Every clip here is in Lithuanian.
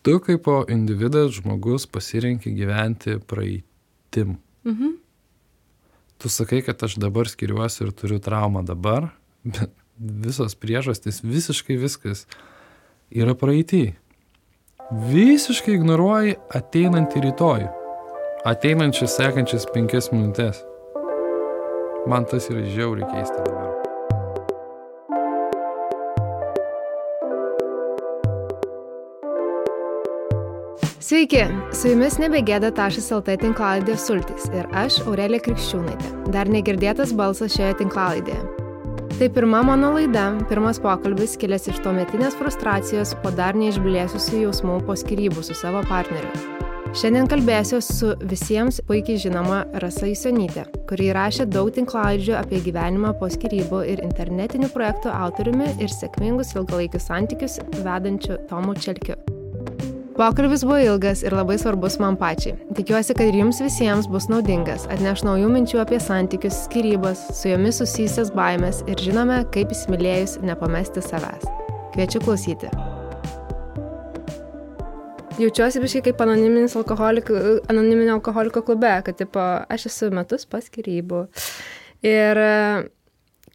Tu kaip individas, žmogus pasirenki gyventi praeitim. Tu sakai, kad aš dabar skiriuosi ir turiu traumą dabar, bet visos priežastys, visiškai viskas yra praeitį. Visiškai ignoruoji ateinantį rytojų. Ateinančias sekančias 5 minutės. Man tas yra žiauriai keista dabar. Sveiki, su jumis nebegėda.lt tinklalaidė Sultys ir aš, Aurelija Krikščiūnaitė. Dar negirdėtas balsas šioje tinklalaidėje. Tai pirma mano laida, pirmas pokalbis kilęs iš tuometinės frustracijos po dar neišblėsusių jausmų po skyrybų su savo partneriu. Šiandien kalbėsiu su visiems puikiai žinoma Rasa Jusionytė, kuri įrašė daug tinklalaidžių apie gyvenimą po skyrybų ir internetinių projektų autoriumi ir sėkmingus ilgalaikius santykius vedančiu Tomu Čelkiu. Pokalbis buvo ilgas ir labai svarbus man pačiai. Tikiuosi, kad ir jums visiems bus naudingas, atneš naujų minčių apie santykius, skyrybas, su jomis susijusias baimės ir žinome, kaip įsimylėjus nepamesti savęs. Kviečiu klausyti. Jaučiuosi biškai kaip anoniminio alkoholiko klube, kad aš esu metus po skyrybų. Ir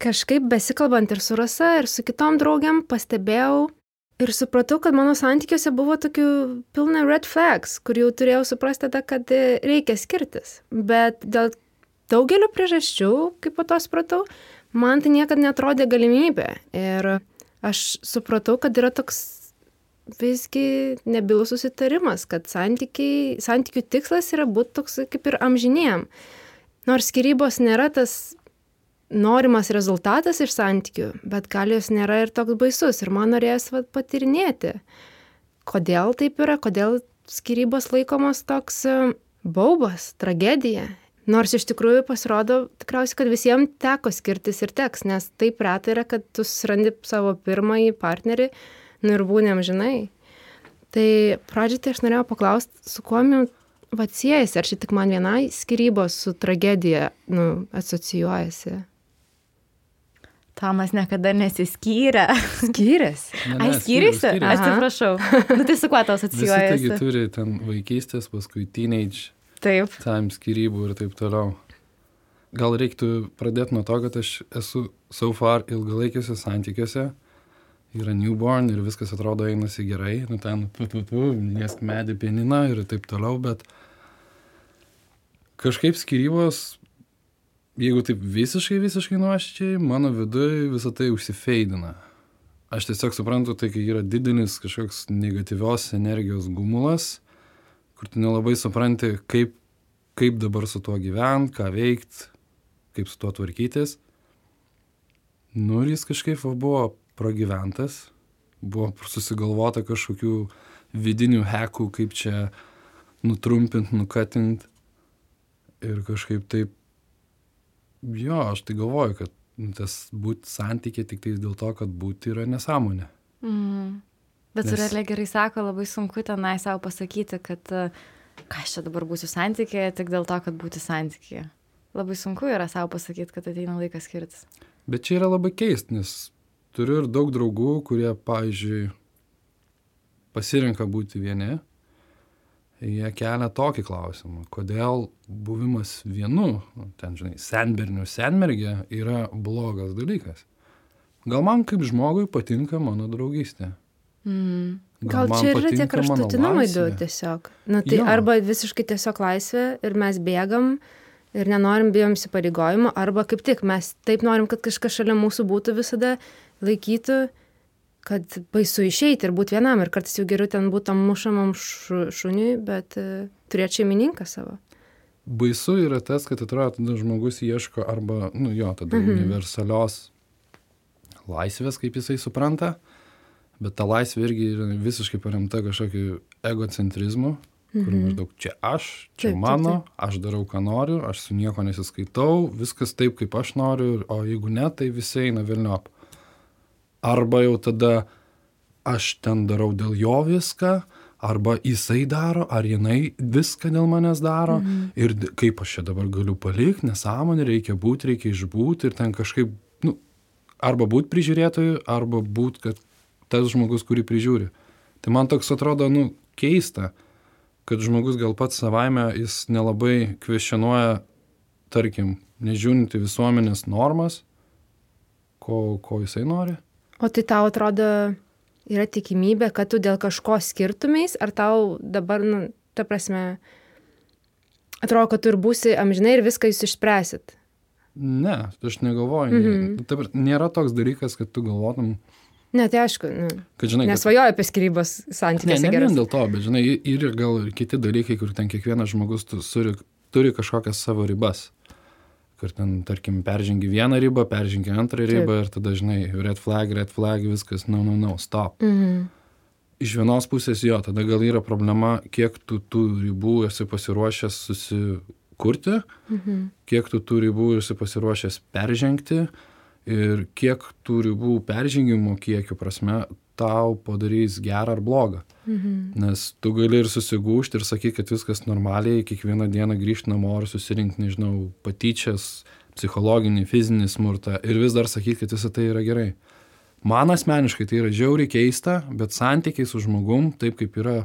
kažkaip besikalbant ir su Rasa, ir su kitom draugiam pastebėjau, ir supratau, kad mano santykiuose buvo tokių pilna red flags, kur jau turėjau suprasti, kad reikia skirtis. Bet dėl daugelio priežasčių, kaip po to supratau, man tai niekada neatrodė galimybė. Ir aš supratau, kad yra toks visgi nebylus susitarimas, kad santykių tikslas yra būti toks kaip ir amžiniem. Nors skyrybos nėra tas norimas rezultatas iš santykių, bet gal jos nėra ir toks baisus. Ir man norėjęs patirinėti, kodėl taip yra, kodėl skyrybos laikomos toks baubas, tragedija. Nors iš tikrųjų pasirodo tikriausiai, kad visiems teko skirtis ir teks, nes taip retai yra, kad tu susirandi savo pirmąjį partnerį ir būni amžinai. Tai pradžiai tai aš norėjau paklausti, su kuo siejasi, ar čia tik man vienai skyrybos su tragedija asocijuojasi? Tomas niekada nesiskyrė. Skyrėsi? Ai, skyrėsi? Aš atsiprašau. Tai su kuo tau asocijuojasi? Visi taigi turi ten vaikystės, paskui teenage, time skyrybų ir taip toliau. Gal reiktų pradėti nuo to, kad aš esu so far ilgalaikiuose santykiuose. Yra newborn ir viskas atrodo einasi gerai. Ten liesk medį pianiną ir taip toliau, bet kažkaip skyrybos, jeigu taip visiškai nuoširdžiai, mano viduje visą tai užsifeidina. Aš tiesiog suprantu, tai kai yra didelis kažkoks negatyvios energijos gumulas, kur tu nelabai supranti, kaip dabar su tuo gyvent, ką veikt, kaip su tuo tvarkytis. Ir jis kažkaip buvo pragyventas, buvo susigalvota kažkokių vidinių hackų, kaip čia nutrumpint, nukatint. Ir kažkaip taip, aš tai galvoju, kad tas būti santykiai tik tai dėl to, kad būti yra nesąmonė. Bet Aurelija gerai sako, labai sunku tenai savo pasakyti, kad ką aš čia dabar būsiu santykyje tik dėl to, kad būti santykyje. Labai sunku yra savo pasakyti, kad ateina laikas skirtis. Bet čia yra labai keist, nes turiu ir daug draugų, kurie, pavyzdžiui, pasirenka būti vieni. Jie kelia tokį klausimą, kodėl buvimas vienu, senbernių senmergė yra blogas dalykas. Gal man kaip žmogui patinka mano draugystė. Gal čia yra tie kraštutinumai du tiesiog. Tai arba visiškai tiesiog laisvė ir mes bėgam ir nenorim, bijom įsipareigojimo, arba kaip tik mes taip norim, kad kažkas šalia mūsų būtų visada, laikytų, kad baisu išeiti ir būti vienam, ir kartais jau geriau ten būtam mušamam šuniui, bet turėti šeimininką savo. Baisu yra tas, kad atrodo, tada žmogus ieško arba, universalios laisvės, kaip jisai supranta, bet ta laisvė irgi yra visiškai paremta kažkokiu egocentrizmu, kur maždaug čia aš, čia mano, aš darau, ką noriu, aš su nieko nesiskaitau, viskas taip, kaip aš noriu, o jeigu ne, tai visi eina velniop. Arba jau tada aš ten darau dėl jo viską, arba jisai daro, ar jinai viską dėl manęs daro, ir kaip aš čia dabar galiu palikti, nesąmonė, reikia būti, reikia išbūti, ir ten kažkaip, arba būti prižiūrėtoju, arba būti, kad tas žmogus, kurį prižiūri. Tai man toks atrodo, keista, kad žmogus gal pats savaime jis nelabai kvestionuoja, tarkim, nežiūrinti visuomenės normas, ko jisai nori. O tai tau atrodo yra tikimybė, kad tu dėl kažko skirtumeis, ar tau dabar, ta prasme, atrodo, kad tu ir būsi amžinai ir viską jūs išspręsit? Ne, aš negalvoju. Nėra toks dalykas, kad tu galvotum. Ne, tai aišku, kad, žinai, nesvajoju apie skyrybos santykiuose. Ne vien dėl to, bet žinai, ir gal ir kiti dalykai, kur ten kiekvienas žmogus turi kažkokias savo ribas. Kur ten, tarkim, peržengi vieną ribą, peržengi antrą ribą ir tada, žinai, red flag, viskas, no, stop. Iš vienos pusės jo, tada gal yra problema, kiek tu tų ribų esi pasiruošęs susikurti, kiek tu tų ribų esi pasiruošęs peržengti ir kiek tų ribų peržengimo kiekio prasme tau padarys gerą ar blogą. Nes tu gali ir susigūžti ir sakyti, kad viskas normaliai, kiekvieną dieną grįžti namo ir susirinkti, nežinau, patyčias, psichologinį, fizinį smurtą ir vis dar sakyti, kad visą tai yra gerai. Man asmeniškai tai yra žiauriai keista, bet santykiai su žmogum, taip kaip yra,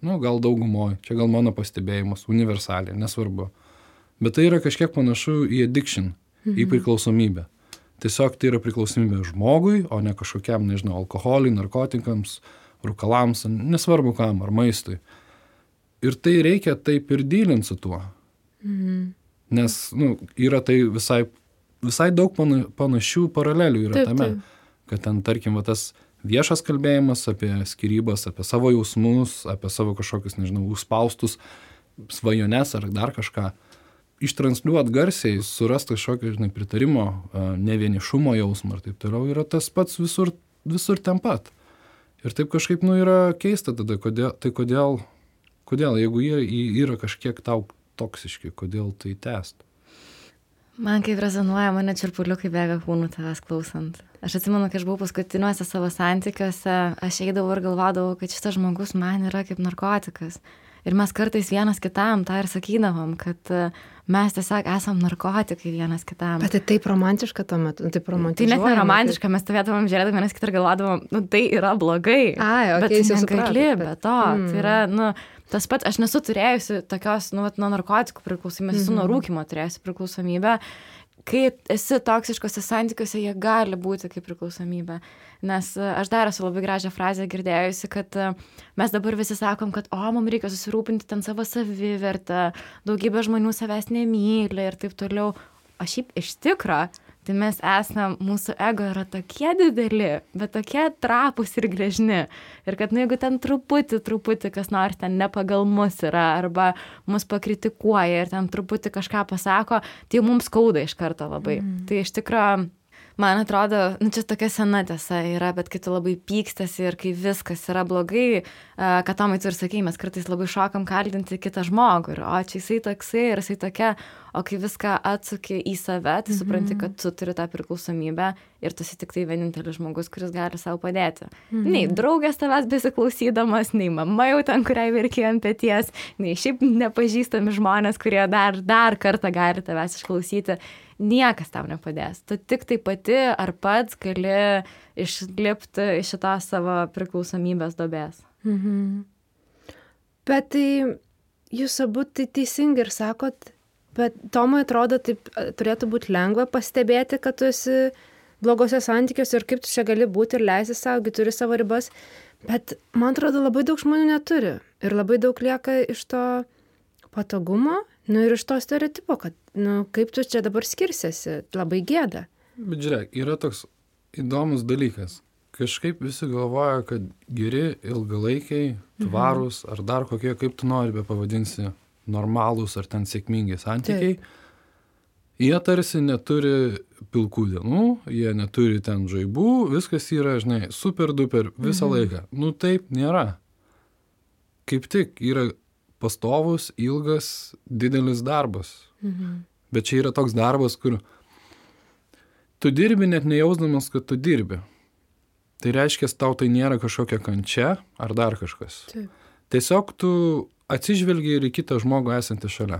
gal daugumoj, čia gal mano pastebėjimas, universaliai, nesvarbu. Bet tai yra kažkiek panašu į addiction, į priklausomybę. Tiesiog tai yra priklausomybė žmogui, o ne kažkokiam, nežinau, alkoholiui, narkotikams, rūkalams, nesvarbu kam, ar maistui. Ir tai reikia taip ir dylinti su tuo. Nes, yra tai visai daug panašių paralelių yra tame. Kad ten, tarkim, tas viešas kalbėjimas apie skyrybas, apie savo jausmus, apie savo kažkokius, nežinau, užspaustus svajones ar dar kažką. Ištransliuot garsiai, surast kažkokio, žinai, pritarimo, nevienišumo jausmą ir taip toliau, yra tas pats visur ten pat. Ir taip kažkaip, yra keista tada, kodėl, jeigu jie yra kažkiek tau toksiški, kodėl tai tęst? Man kaip rezonuoja, mane čirpuliukai bėga kūnų tavęs klausant. Aš atsimenu, kai aš buvau paskutiniuose savo santykiuose, aš eidavau ir galvodavau, kad šitas žmogus man yra kaip narkotikas. Ir mes kartais vienas kitam tą ir sakydavom, kad mes tiesiog esam narkotikai vienas kitam. Bet tai taip romantiška tuo metu, taip romantiška. Tai net neromantiška, mes stovėdavom žiūrėdami vienas kitą ir galvodavom, tai yra blogai. Bet tu negali be to. Tai yra, tas pats, aš nesu turėjusi tokios, nuo narkotikų priklausomybės, esu nuo rūkymo turėjusi priklausomybę. Kai esi toksiškose santykiuose, jie gali būti kaip priklausomybė. Nes aš dar esu labai gražią frazę girdėjusi, kad mes dabar visi sakom, kad mums reikia susirūpinti ten savo savivertę, daugybė žmonių savęs nemyli ir taip toliau. O šiaip iš tikro, tai mes esam, mūsų ego yra tokie dideli, bet tokie trapūs ir gležni. Ir kad jeigu ten truputį kas nors ten ne pagal mus yra, arba mus pakritikuoja ir ten truputį kažką pasako, tai mums skauda iš karto labai. Tai iš tikro, man atrodo, čia tokia sena tiesa yra, bet kai tu labai pykstasi ir kai viskas yra blogai, kad Tomai tu ir sakei, mes kartais labai šokam kaltinti kitą žmogų. Ir, čia jisai toksai ir jisai tokia, o kai viską atsuki į save, tai supranti, kad tu turi tą priklausomybę ir tu esi tik tai vienintelis žmogus, kuris gali savo padėti. Nei draugės tavęs besiklausydamas, nei mama jau ten, kuriai verkė ant peties, nei šiaip nepažįstami žmonės, kurie dar kartą gali tavęs išklausyti. Niekas tau nepadės. Tu tik tai pati ar pats gali išlipti iš šitos savo priklausomybės duobės. Bet tai jūs abu tai teisingai ir sakot, bet Tomui atrodo, taip turėtų būti lengva pastebėti, kad tu esi blogose santykiuose ir kaip tu čia gali būti ir leisti savo, turi savo ribas. Bet man atrodo, labai daug žmonių neturi. Ir labai daug lieka iš to patogumo, ir iš to stereotipo, kad, kaip tu čia dabar skirsiesi, labai gėda. Bet žiūrėk, yra toks įdomus dalykas. Kažkaip visi galvoja, kad geri, ilgalaikiai, tvarūs, ar dar kokie, kaip tu nori be pavadinsi, normalūs ar ten sėkmingi santykiai. Jie tarsi neturi pilkų dienų, jie neturi ten žaibų, viskas yra, žinai, super duper visą laiką. Taip nėra. Kaip tik yra pastovus, ilgas, didelis darbas. Bet čia yra toks darbas, kur tu dirbi net nejausdamas, kad tu dirbi. Tai reiškia, tau tai nėra kažkokia kančia ar dar kažkas. Taip. Tiesiog tu atsižvelgi ir į kitą žmogų esantį šalia.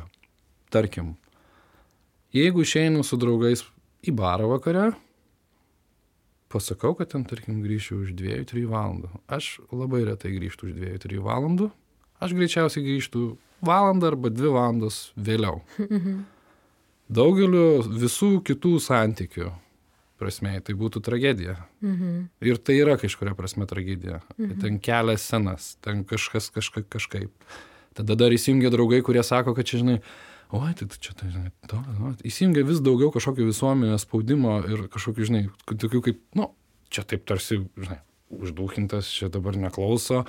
Tarkim, jeigu išeinu su draugais į barą vakare, pasakau, kad ten, tarkim, grįšiu už 2-3 valandų. Aš labai retai grįžtu už 2-3 valandų. aš greičiausiai grįžtų valandą arba 2 valandas vėliau. Daugeliu visų kitų santykių prasme, tai būtų tragedija. Ir tai yra kažkuria prasme tragedija. Ten kelia scenas, ten kažkas kažkaip. Tada dar įsijungia draugai, kurie sako, kad čia, žinai, oi, tai čia, tai, žinai, įsijungia vis daugiau kažkokio visuomenės spaudimo ir kažkokių, žinai, tokių kaip, čia taip tarsi, žinai, uždūkintas, čia dabar neklauso,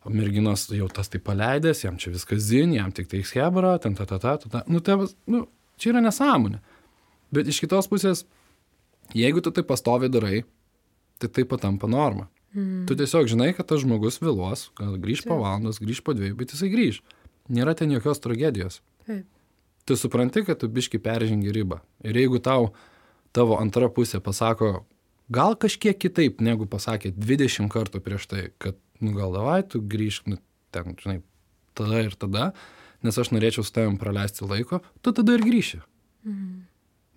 merginos jau tas tai paleidęs, jam čia viskas zin, jam tik tai schebra, ten čia yra nesąmonė. Bet iš kitos pusės, jeigu tu tai pastoviai darai, tai patampa norma. Tu tiesiog žinai, kad tas žmogus vėluos, gal grįž po valandos, grįž po 2, bet jisai grįž. Nėra ten jokios tragedijos. Tu supranti, kad tu biški peržengi ribą. Ir jeigu tavo antra pusė pasako, gal kažkiek kitaip, negu pasakė 20 kartų prieš tai, kad, gal davai, tu grįžk, ten, žinai, tada ir tada, nes aš norėčiau su tavim praleisti laiko, tu tada ir grįši.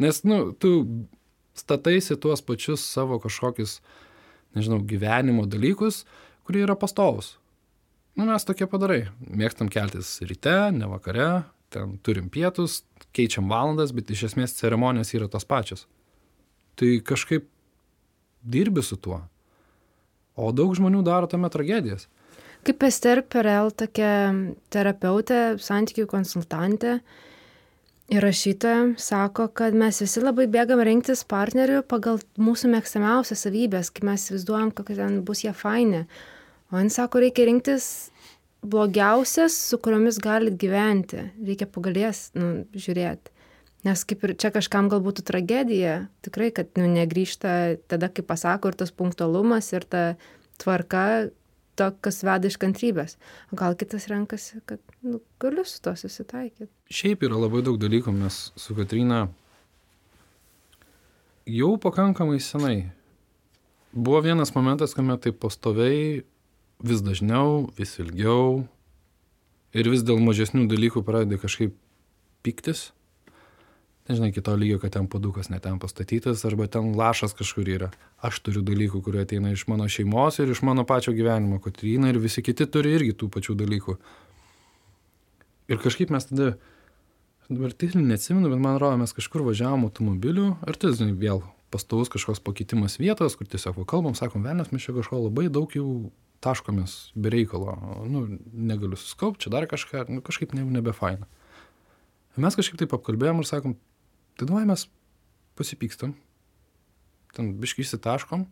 Nes, tu stataisi tuos pačius savo kažkokius, nežinau, gyvenimo dalykus, kurie yra pastovus. Mes tokie padarai. Mėgstam keltis ryte, ne vakare, ten turim pietus, keičiam valandas, bet iš esmės ceremonijos yra tos pačios. Tai kažkaip dirbi su tuo. O daug žmonių daro tame tragedijas. Kaip Ester Perel, tokia terapeutė, santykių konsultantė ir rašytoja, sako, kad mes visi labai bėgam rinktis partnerių pagal mūsų mėgstamiausias savybės, kai mes įsivaizduojam, kokie ten bus jie faini. O jis sako, reikia rinktis blogiausias, su kuriomis galit gyventi. Reikia pagalės žiūrėti. Nes kaip ir čia kažkam gal būtų tragedija, tikrai, kad negrįžta tada, kai pasako, ir tas punktualumas, ir ta tvarka, to, kas veda iš kantrybės. O gal kitas renkasi, kad galiu su to susitaikyti. Šiaip yra labai daug dalykų, mes su Kotryna jau pakankamai senai. Buvo vienas momentas, kuomet taip pastoviai, vis dažniau, vis ilgiau ir vis dėl mažesnių dalykų pradedi kažkaip piktis. Nežinai, kito lygio, kad ten puodukas ne ten pastatytas, arba ten lašas kažkur yra. Aš turiu dalykų, kurie ateina iš mano šeimos ir iš mano pačio gyvenimo, Kotryna ir visi kiti turi irgi tų pačių dalykų. Ir kažkaip mes tada, dabar tiksliai neatsimenu, bet man atrodo, mes kažkur važiavom automobiliu, ir tai, žinai, vėl pastovus kažkoks pakeitimas vietos, kur tiesiog kalbam, sakom, velnias, mes čia kažko labai daug jau taškomės be reikalo, negaliu suskaupti, čia dar kažką, kažkaip nebefaina. Mes kažkaip taip apkalbėjom ir sakom, tai davai mes pasipykstam, ten biškai įsitaškom,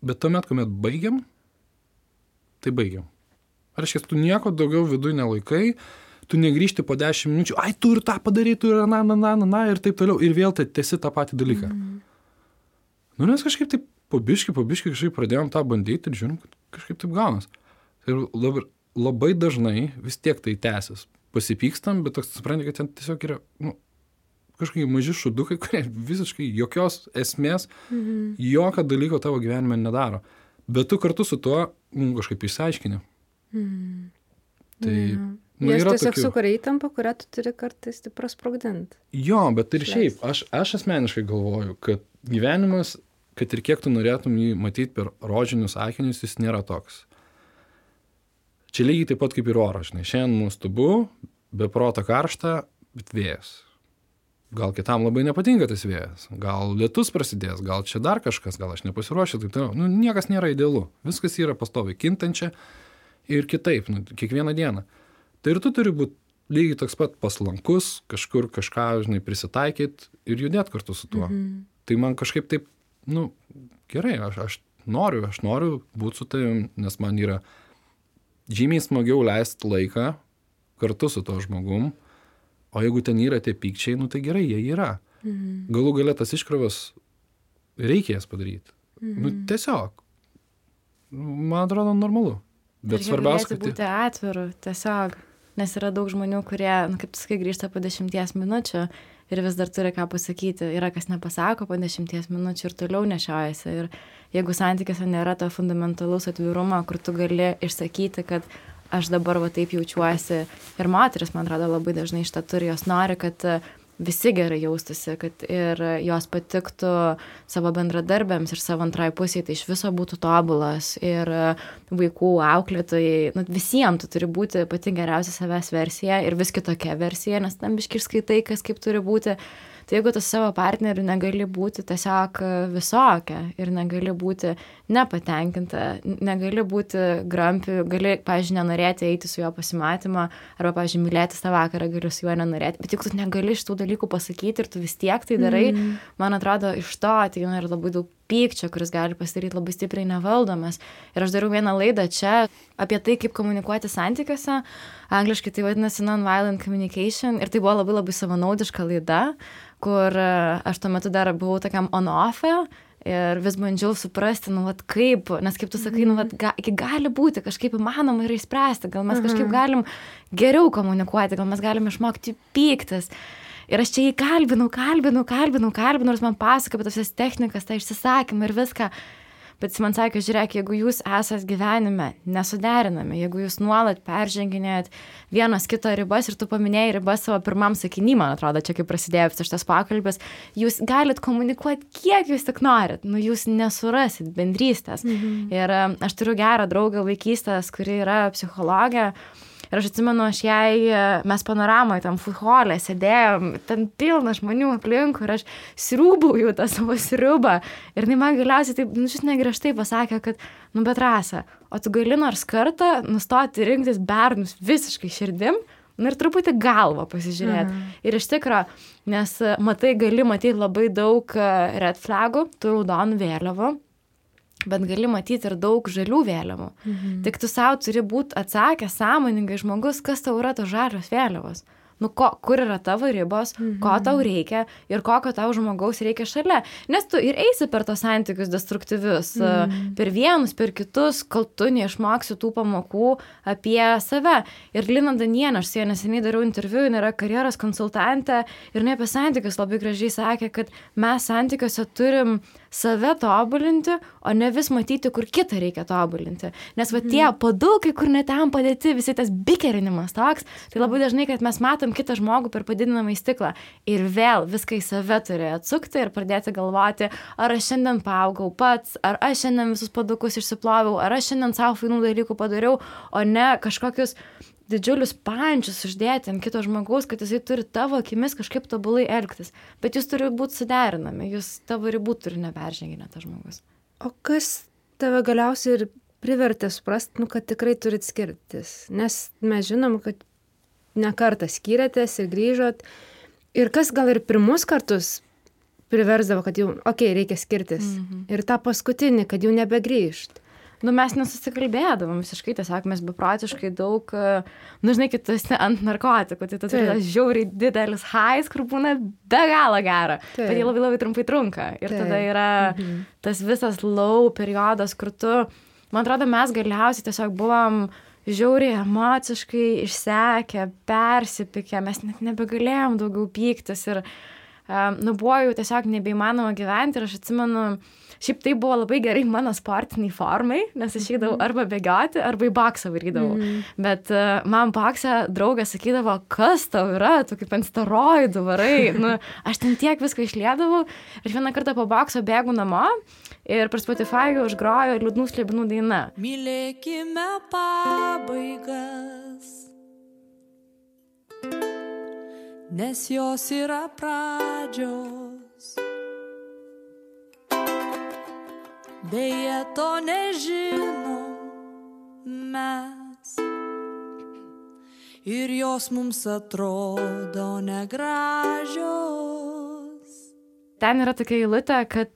bet tuomet, kuomet baigiam, tai baigiam. Reiškia, tu nieko daugiau viduj nelaikai, tu negrįžti po 10 minučių, ai, tu ir tą padarai, tu ir ir taip toliau, ir vėl tęsi tą patį dalyką. Nes kažkaip taip po biškai kažkaip pradėjom tą bandyti ir žiūrim, kad kažkaip taip gaunas. Ir labai dažnai vis tiek tai tęsis. Pasipykstam, bet toks supranti, kad ten tiesiog yra kažkokie maži šudukai, kurie visiškai jokios esmės, jokio dalyko tavo gyvenime nedaro. Bet tu kartu su tuo kažkaip išsiaiškini. Tai Jis tiesiog sukuria įtampą, kurią tu turi kartais prasprogdinti. Jo, bet ir šiaip, aš asmeniškai galvoju, kad gyvenimas, kad ir kiek tu norėtum jį matyti per rožinius akinius, jis nėra toks. Čia lygiai taip pat kaip ir oras, žinai. Šiandien nuostabu, be proto karšta, bet vėjas. Gal kitam labai nepatinka tas vėjas. Gal lietus prasidės, gal čia dar kažkas, gal aš nepasiruošiu. Tai niekas nėra idealu. Viskas yra pastoviai kintančia ir kitaip, kiekvieną dieną. Tai ir tu turi būti lygiai toks pat paslankus, kažkur kažką, žinai, prisitaikyti ir judėti kartu su tuo. Tai man kažkaip taip, gerai, aš noriu būti su tavim, nes man yra žymiai smagiau leisti laiką kartu su to žmogum, o jeigu ten yra tie pykčiai, tai gerai, jie yra. Galų gale tas iškrovas reikės padaryti. Tiesiog. Man atrodo normalu. Bet svarbiausia, kad būti atviru, tiesiog. Nes yra daug žmonių, kurie, kaip tu sakai, grįžta po 10 minučių ir vis dar turi ką pasakyti. Yra kas nepasako po 10 minučių ir toliau nešiojasi. Ir jeigu santykiuose nėra to fundamentalaus atvirumo, kur tu gali išsakyti, kad aš dabar va taip jaučiuosi. Ir moteris, man atrodo, labai dažnai šitą turi, jos nori, kad visi gerai jaustųsi, kad ir jos patiktų savo bendradarbėms ir savo antrai pusiai, tai iš viso būtų tobulas ir vaikų auklėtojai, nu, visiems tu turi būti pati geriausia savęs versija ir vis kitokia versija, nes tam biški skaitai, kas kaip turi būti. Tai jeigu tu savo partneriu negali būti tiesiog visokia ir negali būti nepatenkinta, negali būti grampi, gali, pavyzdžiui, nenorėti eiti su juo pasimatymą, arba, pavyzdžiui, mylėti tą vakarą, gali su juo nenorėti, bet jeigu tu negali šitų dalykų pasakyti ir tu vis tiek tai darai, man atrodo, iš to ateina ir labai daug pykčio, kuris gali pasidaryti labai stipriai nevaldomas. Ir aš dariau vieną laidą čia apie tai, kaip komunikuoti santykiuose, angliškai tai vadinasi non-violent communication, ir tai buvo labai labai savanaudiška laida, kur aš tuo metu dar buvau tokiam on-off'e ir vis bandžiau suprasti, nu, vat kaip, nes kaip tu sakai, nu, vat gali būti, kažkaip įmanoma yra išspręsti, gal mes kažkaip galim geriau komunikuoti, gal mes galim išmokti pyktis. Ir aš čia jį kalbinau, nors man pasako apie tas technikas, tą išsisakymą ir viską. Bet jis man sakė, žiūrėk, jeigu jūs esat gyvenime nesuderinami, jeigu jūs nuolat perženginėjat vienas kito ribas ir tu paminėjai ribas savo pirmam sakiny, man atrodo, čia kaip prasidėjo visas šitas pokalbis, jūs galit komunikuoti, kiek jūs tik norit, nu jūs nesurasit bendrystės. Ir aš turiu gerą draugą vaikystės, kuri yra psichologė. Ir aš atsimenu, mes panoramoje tam futholė sėdėjom, ten pilna žmonių aplinkų ir aš sriūbauju tą savo sriubą. Ir man galiausiai taip, nu, šis negriežtai pasakė, kad, nu, bet Rasa, o tu gali nors kartą nustoti rinktis bernus visiškai širdim, nu, ir truputį galvą pasižiūrėti. Ir iš tikro, nes gali matyti labai daug red flagų, tų raudonų vėliavų, bet gali matyti ir daug žalių vėliavų. Tik tu savo turi būti atsakęs sąmoningai žmogus, kas tau yra tos žalios vėliavos. Nu, kur yra tavo ribos, ko tau reikia ir kokio tau žmogaus reikia šalia. Nes tu ir eisi per tos santykius destruktyvius, per vienus, per kitus, kol tu neišmoksi tų pamokų apie save. Ir Lina Danienė, aš su ja neseniai dariau interviu, jinai yra karjeros konsultantė ir jinai apie santykius labai gražiai sakė, kad mes santykiuose turim save tobulinti, o ne vis matyti, kur kitą reikia tobulinti. Nes va tie padukai, kur net ten padėti, visi tas bikerinimas toks, tai labai dažnai, kad mes matom kitą žmogų per padidinamą stiklą ir vėl viską į save turi atsukti ir pradėti galvoti, ar aš šiandien paaugau pats, ar aš šiandien visus padukus išsiploviau, ar aš šiandien savo fainų dalykų padariau, o ne kažkokius didžiulius pančius uždėti ant kito žmogaus, kad jisai turi tavo akimis kažkaip tobulai elgtis. Bet jūs turi būti suderinami, jūs tavo ribų turi neperženginę tas žmogus. O kas tave galiausiai ir privertė suprasti, nu, kad tikrai turit skirtis? Nes mes žinom, kad ne kartą skyrėtės ir grįžot. Ir kas gal ir pirmus kartus priversdavo, kad jau, reikia skirtis. Ir tą paskutinį, kad jau nebegrįžt. Nu, mes nesusikalbėdavom visiškai, tiesiog mes beprotiškai daug, nu, žinai, kai tu esi ant narkotikų, tai tu turi tas žiauriai didelis highs, kur būna be galo gera, bet jie labai labai trumpai trunka. Ir tada yra tas visas low periodas, kur tu, man atrodo, mes galiausiai tiesiog buvom žiauriai emociškai išsekę, persipykę, mes net nebegalėjom daugiau pyktis ir, nu, buvo jau tiesiog nebeįmanoma gyventi ir aš atsimenu, šiaip tai buvo labai gerai mano sportiniai formai, nes aš eidavau arba bėgioti, arba į boksą varydavau. Bet man boksą draugas sakydavo, kas tau yra, tu kaip ant steroidų varai. Nu, aš ten tiek viską išliedavau ir vieną kartą po bokso bėgu namo ir per Spotify užgrojo Liūdnų slibinų daina. Mylėkime pabaigas, nes jos yra pradžios. Beje, to nežinom mes ir jos mums atrodo negražios. Ten yra tokia eilutė, kad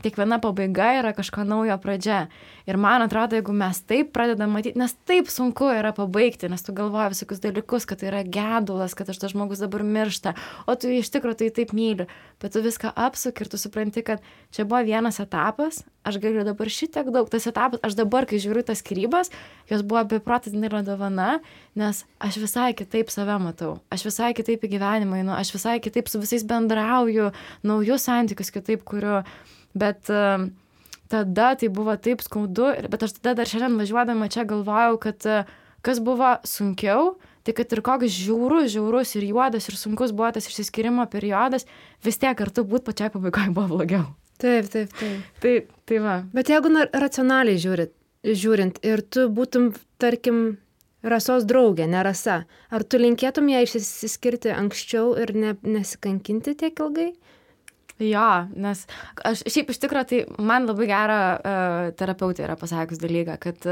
kiekviena pabaiga yra kažko naujo pradžia. Ir man atrodo, jeigu mes taip pradedam matyti, nes taip sunku yra pabaigti, nes tu galvoji visokius dalykus, kad tai yra gedulas, kad tas žmogus dabar miršta, o tu iš tikrųjų tai taip myli. Bet tu viską apsuki ir tu supranti, kad čia buvo vienas etapas, aš galiu dabar šitiek daug, tas etapas, aš dabar, kai žiūriu tas skyrybas, jos buvo beprotis didelė dovana, nes aš visai kitaip save matau, aš visai kitaip į gyvenimą einu, aš visai kitaip su visais bendrauju, naujus santykius kitaip kuriu, bet tada tai buvo taip skaudu, bet aš tada dar šiandien važiuodama čia galvojau, kad kas buvo sunkiau, Tai kad ir koks žiaurus ir juodas ir sunkus buvo tas išsiskyrimo periodas, vis tiek kartu būt pačiai pabaigoje buvo blogiau. Taip. Tai va. Bet jeigu racionaliai žiūrint ir tu būtum, tarkim, Rasos draugė, ne Rasa, ar tu linkėtum ją išsiskirti anksčiau ir nesikankinti tiek ilgai? Jo, nes aš šiaip iš tikrųjų, tai man labai gerą terapeutė yra pasakius dalyką, kad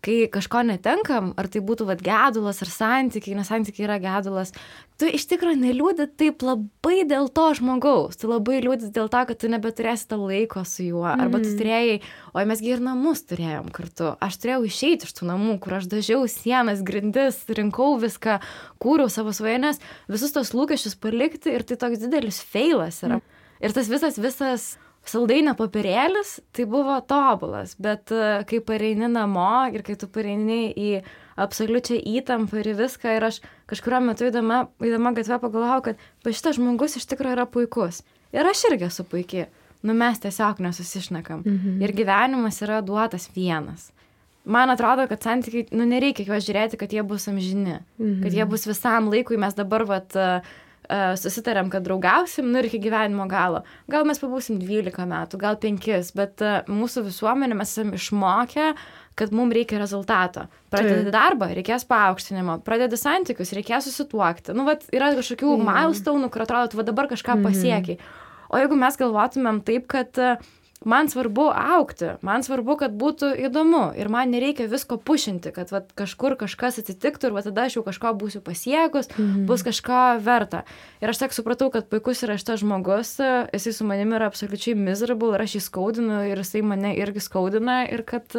kai kažko netenkam, ar tai būtų gedulas ar santykiai, nes santykiai yra gedulas, tu iš tikrųjų neliūdi taip labai dėl to žmogaus, tu labai liūdi dėl to, kad tu nebeturėsi to laiko su juo, arba tu turėjai, oi mesgi ir namus turėjom kartu, aš turėjau išeiti iš tų namų, kur aš dažiau sienas, grindis, rinkau viską, kūriau savo svajones, visus tos lūkesčius palikti ir tai toks didelis feilas yra. Ir tas visas saldainio popierėlis, tai buvo tobulas, bet kai pareini namo ir kai tu pareini į absoliučią įtampą ir viską, ir aš kažkurio metu įdama gatvę pagalvojau, kad šitas žmogus iš tikrųjų yra puikus. Ir aš irgi esu puikiai. Mes tiesiog nesusišnekam. Ir gyvenimas yra duotas vienas. Man atrodo, kad santykiai, nereikia juos žiūrėti, kad jie bus amžini, kad jie bus visam laikui, mes dabar susitarėm, kad draugausim, ir iki gyvenimo galo. Gal mes pabūsim 12 metų, gal 5, bet mūsų visuomenė mes esame išmokę, kad mums reikia rezultato. Pradedi darbą, reikės paaukštinimo, pradedi santykius, reikės susituokti. Yra kažkokių milestonų, kur atrodo, tu dabar kažką pasiekiai. O jeigu mes galvotumėm taip, kad man svarbu augti, man svarbu, kad būtų įdomu ir man nereikia visko pušinti, kad kažkur kažkas atsitiktų ir tada aš jau kažko būsiu pasiekus, bus kažko verta. Ir aš tiek supratau, kad puikus yra šitas žmogus, jisai su manimi yra absoliučiai miserable ir aš jį skaudinu ir jisai mane irgi skaudina ir kad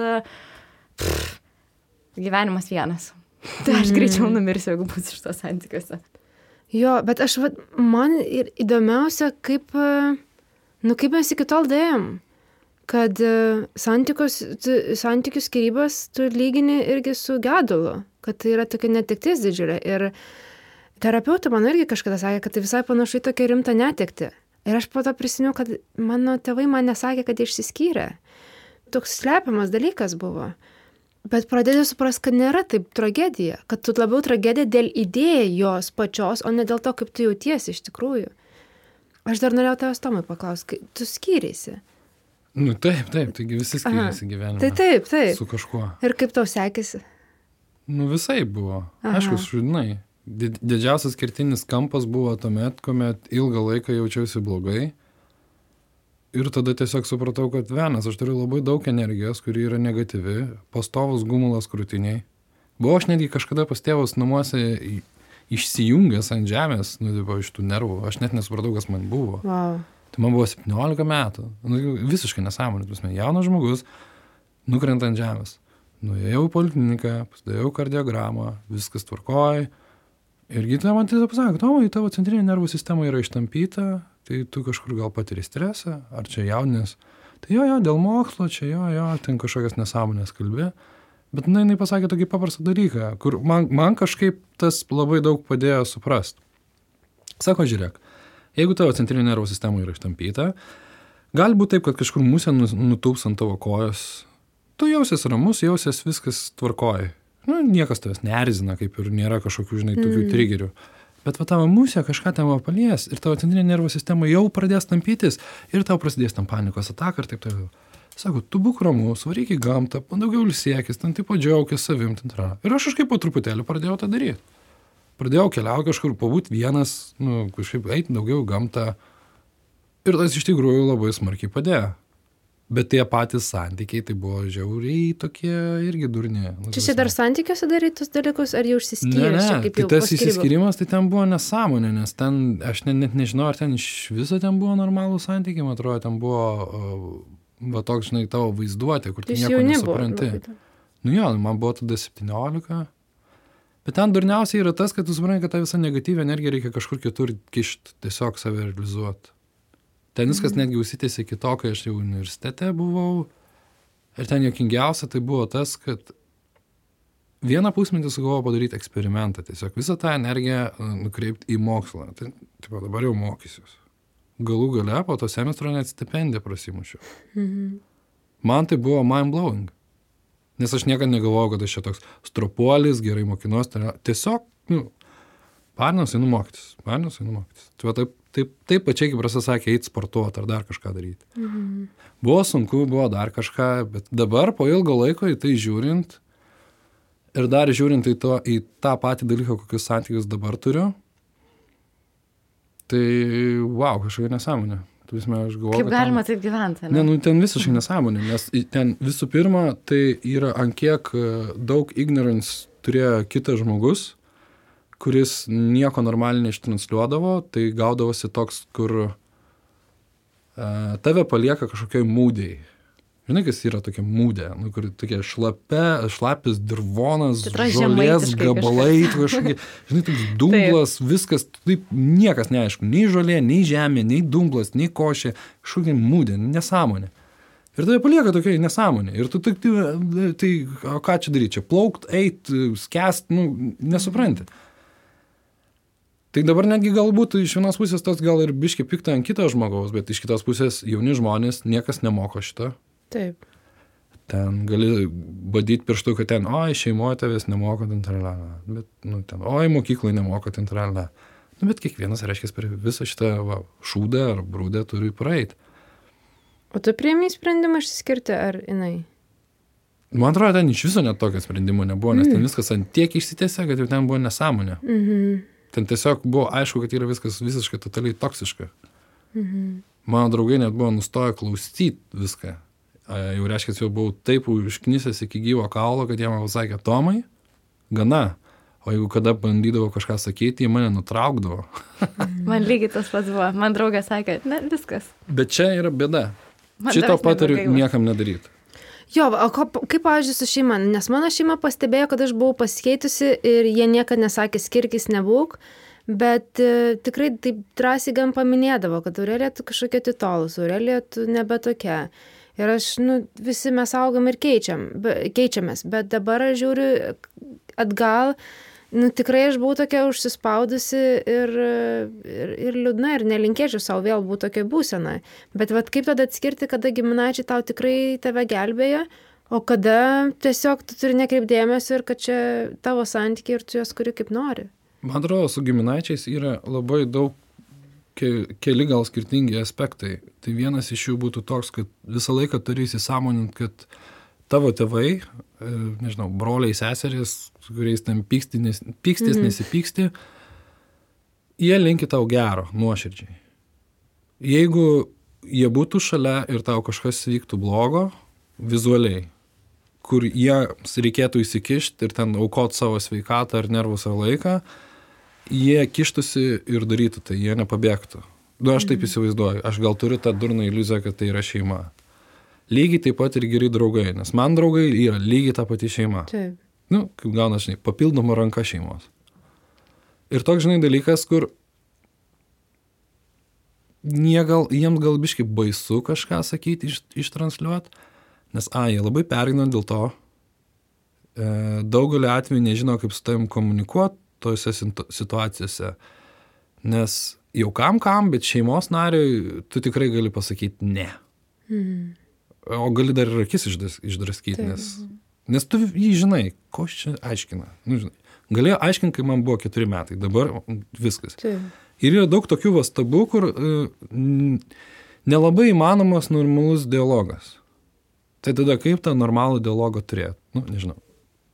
gyvenimas vienas. Tai aš greičiau numirsiu, jeigu būsiu šitos santykiuose. Jo, bet man ir įdomiausia, kaip mes iki tol dėjom. Kad santykių skyrybas tu lygini irgi su gedulu, kad tai yra tokia netektis didžiulė. Ir terapeutė man irgi kažkada sakė, kad tai visai panašu į tokią rimtą netektį. Ir aš po to prisiminiau, kad mano tėvai man nesakė, kad jie išsiskyrė. Toks slepiamas dalykas buvo. Bet pradėjau suprasti, kad nėra taip tragedija, kad tu labiau tragedija dėl idėjos pačios, o ne dėl to, kaip tu jautiesi iš tikrųjų. Aš dar norėjau tavęs Tomai paklausti, tu skyrėsi. Taip, taigi visi skiriasi gyvenime. Tai taip. Su kažkuo. Ir kaip tau sekėsi? Visai buvo. Aišku, žinai, didžiausias kertinis kampas buvo tuomet, kuomet ilgą laiką jaučiausi blogai. Ir tada tiesiog supratau, kad aš turiu labai daug energijos, kuri yra negatyvi, pastovus gumulas krūtiniai. Buvau aš netgi kažkada pas tėvus namuose išsijungęs ant žemės, iš tų nervų. Aš net nesupratau, kas man buvo. Wow. Tai man buvo 17 metų. Visiškai nesąmonė. Jaunas žmogus, nukrenta ant žemės. Nuėjau į polikliniką, pasidariau kardiogramą, viskas tvarkoj. Ir gydytoja man tiesiog pasakė, Tomai, tavo centrinė nervų sistema yra ištampyta, tai tu kažkur gal patiri stresą, ar čia jaunės. Tai jo, dėl mokslo, čia jo, ten kažkokias nesąmonės kalbė. Bet jinai pasakė tokį paprastą dalyką, kur man kažkaip tas labai daug padėjo suprast. Sako, žiūrėk, jeigu tavo centrinė nervų sistema yra ištampyta, gali būti taip, kad kažkur musė nutūps ant tavo kojos. Tu jausies ramus, jausies viskas tvarkoja. Niekas tavęs neerzina, kaip ir nėra kažkokių, tokių trigerių. Bet tavo musė kažką ten palies ir tavo centrinė nervų sistema jau pradės tampytis ir tau prasidės tam panikos ataka ir taip toliau. Sako, tu būk ramus, varyk į gamtą, daugiau ilsėkis, ten taip džiaukis savim. Ir aš kažkaip po truputėlį pradėjau tą daryti. Pradėjau keliauti kažkur, pabūt vienas, kažkaip eiti daugiau į gamtą. Ir tas iš tikrųjų labai smarkiai padėjo. Bet tie patys santykiai, tai buvo žiauriai tokie irgi durni. Čia dar santykiuose darai tus dalykus, ar jau išsiskyręs? Ne, tai tas išsiskyrimas, tai ten buvo nesąmonė, nes ten, aš net nežinau, ar ten iš viso ten buvo normalų santykiai, man atrodo, ten buvo toks, tavo vaizduotė, kur tu nieko nesupranti. Man buvo tada 17. Bet ten durniausiai yra tas, kad tu supranti, kad tą visą negatyvę energiją reikia kažkur kitur kišti, tiesiog save realizuoti. Ten viskas netgi užsitėsi iki to, kai aš jau universitete buvau. Ir ten juokingiausia tai buvo tas, kad vieną pusmetį sugalvojau padaryti eksperimentą. Tiesiog visą tą energiją nukreipti į mokslą. Tai dabar jau mokysiuos. Galų gale po to semestro net stipendiją prasimušiau. Man tai buvo mind-blowing. Nes aš niekada negalvojau, kad aš čia toks stropuolis, gerai mokinuos. Tiesiog Parinas einu mokytis. Tai va taip pačiai, kaip Rasa sakė, eit sportuoti ar dar kažką daryti. Buvo sunku, buvo dar kažką, bet dabar po ilgo laiko į tai žiūrint ir dar žiūrint į tą patį dalyką, kokius santykius dabar turiu, tai wow, kažkokia nesąmonė. Aš galvoju, kaip galima taip gyventi? Ne, ten visiškai nesąmonė, nes ten visų pirma, tai yra ant kiek daug ignorance turėjo kitas žmogus, kuris nieko normaliai neištransliuodavo, tai gaudavosi toks, kur tave palieka kažkokioj mūdėj. Žinai, kas yra tokia mūdė, kur tokia šlapis dirvonas, žolės gabalai, kažkokie, žinai, toks dumblas, viskas, taip niekas neaišku, nei žolė, nei žemė, nei dumblas, nei košė, kažkokia mūdė, nesąmonė. Ir tave palieka tokia nesąmonė. Ir tu tai ką čia daryti, čia plaukt, eit, skęst, nesupranti. Tai dabar netgi galbūt iš vienos pusės tas gal ir biški pikta ant kito žmogaus, bet iš kitos pusės jauni žmonės niekas nemoko šito. Taip. Ten gali badyti pirštu, kad ten, šeimoje tavęs nemoko, ten tralala. Bet, ten, mokykloje nemoko, ten tralala. Bet kiekvienas, reiškia, per visą šitą šūdą ar brūdę turi praeiti. O tu priėmei sprendimą išsiskirti, ar jinai? Man atrodo, ten iš viso net tokio sprendimo nebuvo, nes ten viskas ant tiek išsitėsė, kad jau ten buvo nesąmonė. Ten tiesiog buvo aišku, kad yra viskas visiškai totaliai toksiška. Mano draugai net buvo nustoję klausyti viską. Jau reiškia, jau buvau taip užknisęs iki gyvo kaulo, kad jie man pasakė, Tomai, gana. O jeigu kada bandydavo kažką sakyti, jie mane nutraukdavo. Man lygiai tas pats buvo. Man draugė sakė, ne, viskas. Bet čia yra bėda. Šito patariu niekam nedaryti. Jo, o kaip, pavyzdžiui, su šeima? Nes mano šeima pastebėjo, kad aš buvau pasikeitusi ir jie niekada nesakė skirkis nebūk, bet tikrai taip drąsiai gan paminėdavo, kad Aurelija tu kažkokia atitolus, Aurelija tu nebe tokia. Ir aš, visi mes augam ir keičiamės, bet dabar aš žiūriu atgal, tikrai aš buvau tokia užsispaudusi ir liūdna ir nelinkėčiau savo vėl būti tokia būsena. Bet kaip tada atskirti, kada giminaičiai tau tikrai tave gelbėja, o kada tiesiog tu turi nekreipdėmėsio ir kad čia tavo santykiai ir tu juos kuri kaip nori. Man atrodo, su giminaičiais yra labai daug keli gal skirtingi aspektai. Tai vienas iš jų būtų toks, kad visą laiką turi įsisąmonint, kad tavo tėvai, nežinau, broliai, seserys, kuriais ten pykstis, nesipyksti, jie linki tau gero, nuoširdžiai. Jeigu jie būtų šalia ir tau kažkas vyktų blogo, vizualiai, kur jiems reikėtų įsikišti ir ten aukot savo sveikatą ar nervus ar laiką, jie kištusi ir darytų tai, jie nepabėgtų. Aš taip įsivaizduoju, aš gal turiu tą durną iliuziją, kad tai yra šeima. Lygiai taip pat ir geri draugai, nes man draugai yra lygiai ta pati šeima. Taip. Kaip gauna, papildoma ranka šeimos. Ir toks, dalykas, kur jiems gal biškai baisu kažką sakyti, ištransliuoti, nes jie labai pergyvena dėl to, daugelį atvejų nežino, kaip su tavim komunikuoti tose situacijose, nes jau kam, bet šeimos nariui tu tikrai gali pasakyti ne. O gali dar ir akis išdraskyti, nes tu jį žinai, ko čia aiškina. Galėjo aiškinti, kai man buvo 4 metai, dabar viskas. Ir yra daug tokių stabų, kur nelabai įmanomas normalus dialogas. Tai tada kaip tą normalų dialogą turėti? Nežinau.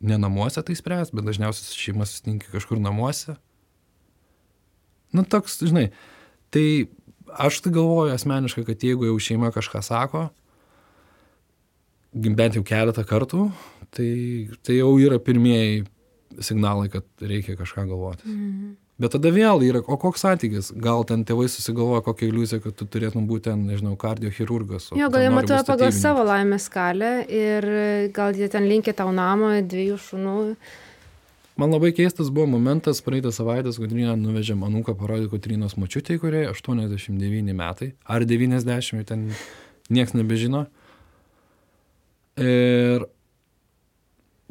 Ne namuose tai spręs, bet dažniausiai šeima susitinka kažkur namuose. Toks, tai aš tai galvoju asmeniškai, kad jeigu jau šeima kažką sako, bent jau keletą kartų, tai jau yra pirmieji signalai, kad reikia kažką galvoti. Bet tada vėl yra, o koks santykis? Gal ten tėvai susigalvoja kokią iliuziją, kad tu turėtum būti ten, nežinau, kardiochirurgas. Jo, gal jie matuoja pagal savo laimės skalę ir gal jie ten linkia tau namo 2 šunų. Man labai keistas buvo momentas, praeitą savaitę Kotryną nuvežėm anūką parodyti Kotrynos močiutei, kuriai 89 metai, ar 90, ten nieks nebežino. Ir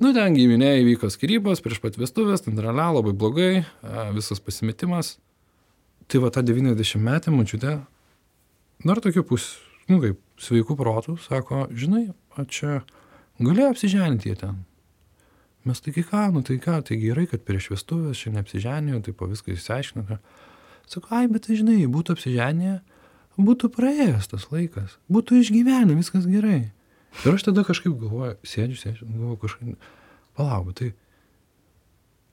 ten giminėje įvyko skyrybos prieš pat vestuvės, ten labai blogai, visas pasimetimas. Tai va ta 90 metė močiutė, dar tokiu kaip sveikų protų, sako, žinai, čia galėjo apsiženyti jie ten. Mes taigi ką, tai gerai, kad prieš vestuvės čia neapsiženėjo, tai po viską išsiaiškino. Sako, bet tai žinai, būtų apsiženėję, būtų praėjęs tas laikas, būtų išgyvenę, viskas gerai. Ir aš tada kažkaip galvoju, sėdžiu, galvoju kažkaip, palauk, tai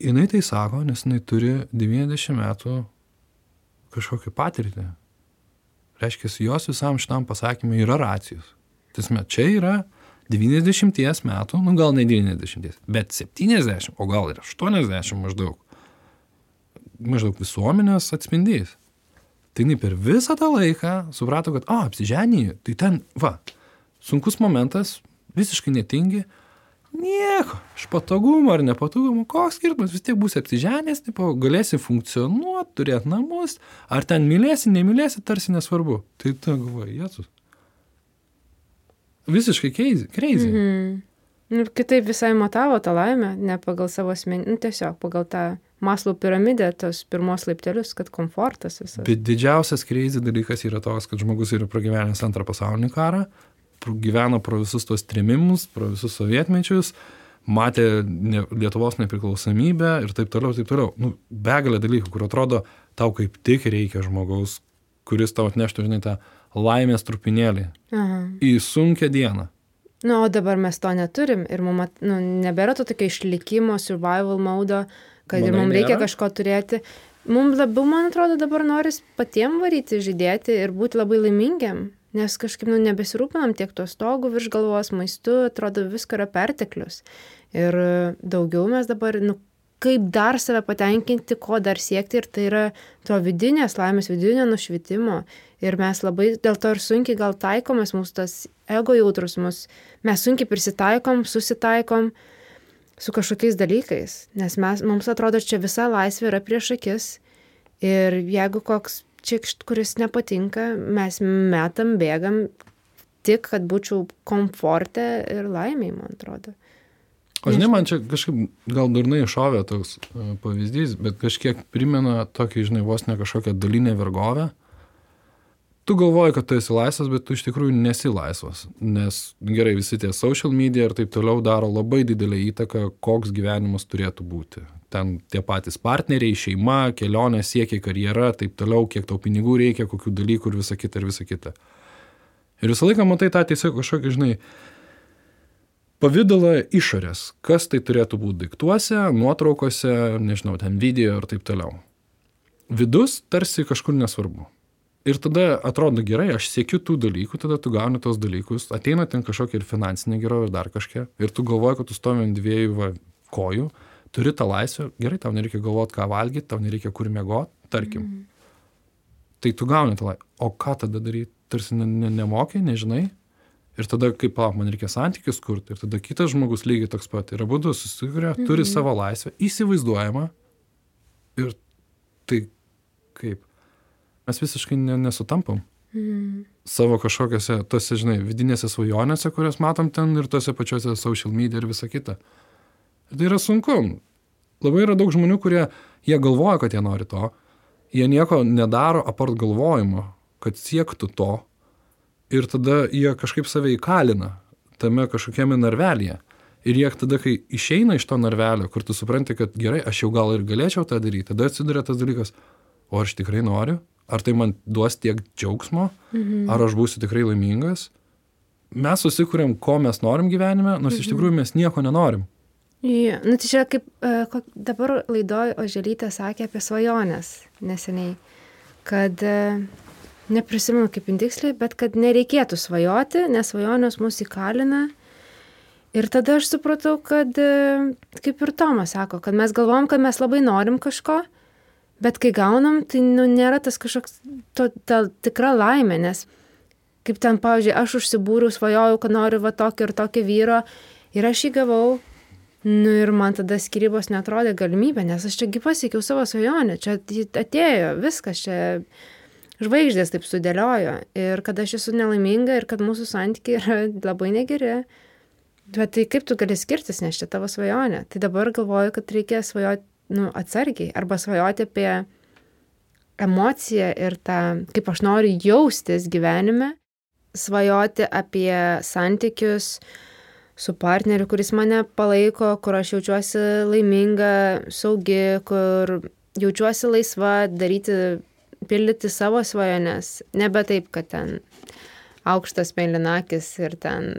jinai tai sako, nes jinai turi 90 metų kažkokią patirtį. Reiškia, jos visam šitam pasakymui yra racijos. Tiesme, čia yra 90 metų, gal ne 90, bet 70, o gal ir 80 maždaug visuomenės atspindys. Tai jinai per visą tą laiką suprato, kad, apsiženyji, tai ten, sunkus momentas, visiškai netingi, nieko, iš patogumo ar nepatogumo, koks skirtumas, vis tiek būsi apsiženęs, galėsi funkcionuoti, turėti namus, ar ten mylėsi, nemylėsi, tarsi nesvarbu. Tai tu galvoji, Jėzus. Visiškai crazy. Ir kitaip visai matavo tą laimę, ne pagal savo asmenį, tiesiog pagal tą Maslow piramidę, tos pirmos laiptelius, kad komfortas visas. Bet didžiausias crazy dalykas yra toks, kad žmogus yra pragyvenęs antrą pasaulinį karą, gyveno pro visus tos trėmimus, pro visus sovietmečius, matė Lietuvos nepriklausomybę ir taip toliau. Begalė dalykų, kur atrodo, tau kaip tik reikia žmogaus, kuris tau atneštų, žinai, tą laimės trupinėlį į sunkią dieną. O dabar mes to neturim ir mums nebėra to tokio išlikimo, survival mode, kad ir mums reikia kažko turėti. Mums labiau, man atrodo, dabar noris patiem varyti, žydėti ir būti labai laimingiam, nes kažkaip nebesirūpinam tiek to stogų virš galvos, maistu, atrodo, visko yra perteklius. Ir daugiau mes dabar, kaip dar save patenkinti, ko dar siekti, ir tai yra to vidinės laimės, vidinio nušvitimo. Ir mes labai dėl to ir sunkiai gal taikomės, mūsų tas ego jautrus, mes sunkiai prisitaikom, susitaikom su kažkokiais dalykais, nes mums atrodo, čia visa laisvė yra prieš akis ir jeigu koks čikšt, kuris nepatinka, mes metam, bėgam tik, kad būčiau komforte ir laimiai, man atrodo. O žinai, man čia kažkaip gal durnai šovė toks pavyzdys, bet kažkiek primena tokį, žinai, vos ne kažkokią dalinę vergovę. Tu galvoji, kad tu esi laisvas, bet tu iš tikrųjų nesi laisvas, nes gerai, visi tie social media ir taip toliau daro labai didelę įtaką, koks gyvenimas turėtų būti. Ten tie patys partneriai, šeima, kelionė, siekiai, karjera, taip toliau, kiek tau pinigų reikia, kokių dalykų ir visa kita. Ir visą laiką matai tą tiesiog kažkokį, žinai, pavydalą išorės, kas tai turėtų būti daiktuose, nuotraukose, nežinau, ten video ir taip toliau. Vidus tarsi kažkur nesvarbu. Ir tada atrodo gerai, aš siekiu tų dalykų, tada tu gauni tos dalykus, ateina ten kažkokia ir finansinė gerovė ir dar kažkia, ir tu galvoji, kad tu stovi ant dviejų kojų, turi tą laisvę, gerai, tau nereikia galvoti, ką valgyti, tau nereikia kur miegoti, tarkim. Tai tu gauni tą laisvę. O ką tada daryti? Tarsi nemokai, nežinai. Ir tada, kaip man reikia santykius kurti, ir tada kitas žmogus lygiai toks pat. Ir abudu susikuria, turi savo laisvę, įsivaizduojama. Ir tai kaip? Mes visiškai nesutampam. Savo kažkokiose, tose, žinai, vidinėse svajonėse, kurias matom ten ir tose pačiose social media ir visa kita. Ir tai yra sunku. Labai yra daug žmonių, kurie, jie galvoja, kad jie nori to. Jie nieko nedaro apart galvojimo, kad siektų to. Ir tada jie kažkaip save įkalina tame kažkokiame narvelyje. Ir jie tada, kai išeina iš to narvelio, kur tu supranti, kad gerai, aš jau gal ir galėčiau tą daryti, tada atsiduria tas dalykas, o aš tikrai noriu? Ar tai man duos tiek džiaugsmo, ar aš būsiu tikrai laimingas. Mes susikuriam, ko mes norim gyvenime, nors iš tikrųjų mes nieko nenorim. Ja, tai čia kaip dabar laidoj Oželytė sakė apie svajonės neseniai, kad neprisimenu kaip tiksliai, bet kad nereikėtų svajoti, nes svajonės mus įkalina. Ir tada aš supratau, kad kaip ir Tomas sako, kad mes galvom, kad mes labai norim kažko, bet kai gaunam, tai nėra tas kažkoks ta tikra laimė, nes kaip ten, pavyzdžiui, aš užsibūriau, svajojau, kad noriu tokio ir tokio vyro ir aš jį gavau, ir man tada skyrybos netrodė galimybė, nes aš čiagi pasiekiau savo svajonę, čia atėjo viskas, čia žvaigždės taip sudėliojo ir kad aš esu nelaiminga ir kad mūsų santykiai yra labai negeri. Bet tai kaip tu gali skirtis, nes čia tavo svajonė. Tai dabar galvoju, kad reikia svajoti atsargiai arba svajoti apie emociją ir tą, kaip aš noriu jaustis gyvenime, svajoti apie santykius su partneriu, kuris mane palaiko, kur aš jaučiuosi laiminga, saugi, kur jaučiuosi laisva daryti, pildyti savo svajones. Nebe taip, kad ten aukštas mėlynakis ir ten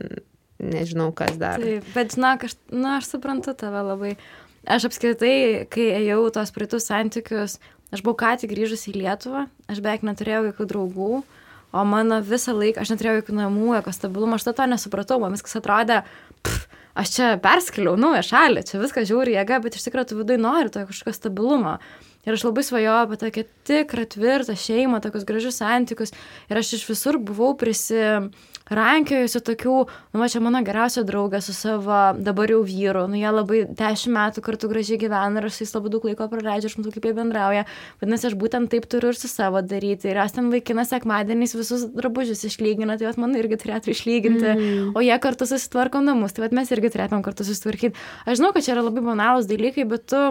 nežinau, kas dar. Taip, bet žinok, aš suprantu tave labai. Aš apskritai, kai ėjau tos praeitus santykius, aš buvau ką tik grįžus į Lietuvą, aš beveik neturėjau jokių draugų, o mano visą laiką, aš neturėjau jokių namų, jokio stabilumo, aš to nesupratau, man viskas atrodė, aš čia perskeliau naują šalį, čia viskas žiauri jėga, bet iš tikrųjų tu vidui nori to kažkokio stabilumo. Ir aš labai svajojau apie tokią tikrą, tvirtą šeimą, tokius gražius santykius. Ir aš iš visur buvau prisirankiojusi tokių, čia mano geriausia draugė su savo dabar jau vyru. Jie labai 10 metų kartu gražiai gyvena ir aš su jais labai daug laiko praleidžiu, aš matau, kaip jie bendrauja. Vadinasi, aš būtent taip turiu ir su savo daryti. Ir aš ten vaikinas sekmadieniais visus drabužius išlygina, tai man irgi turėtų išlyginti. O jie kartu susitvarko namus, tai mes irgi turėtum kartu susitvarkyti. Aš žinau, kad čia yra labai banalūs dalykai, bet tu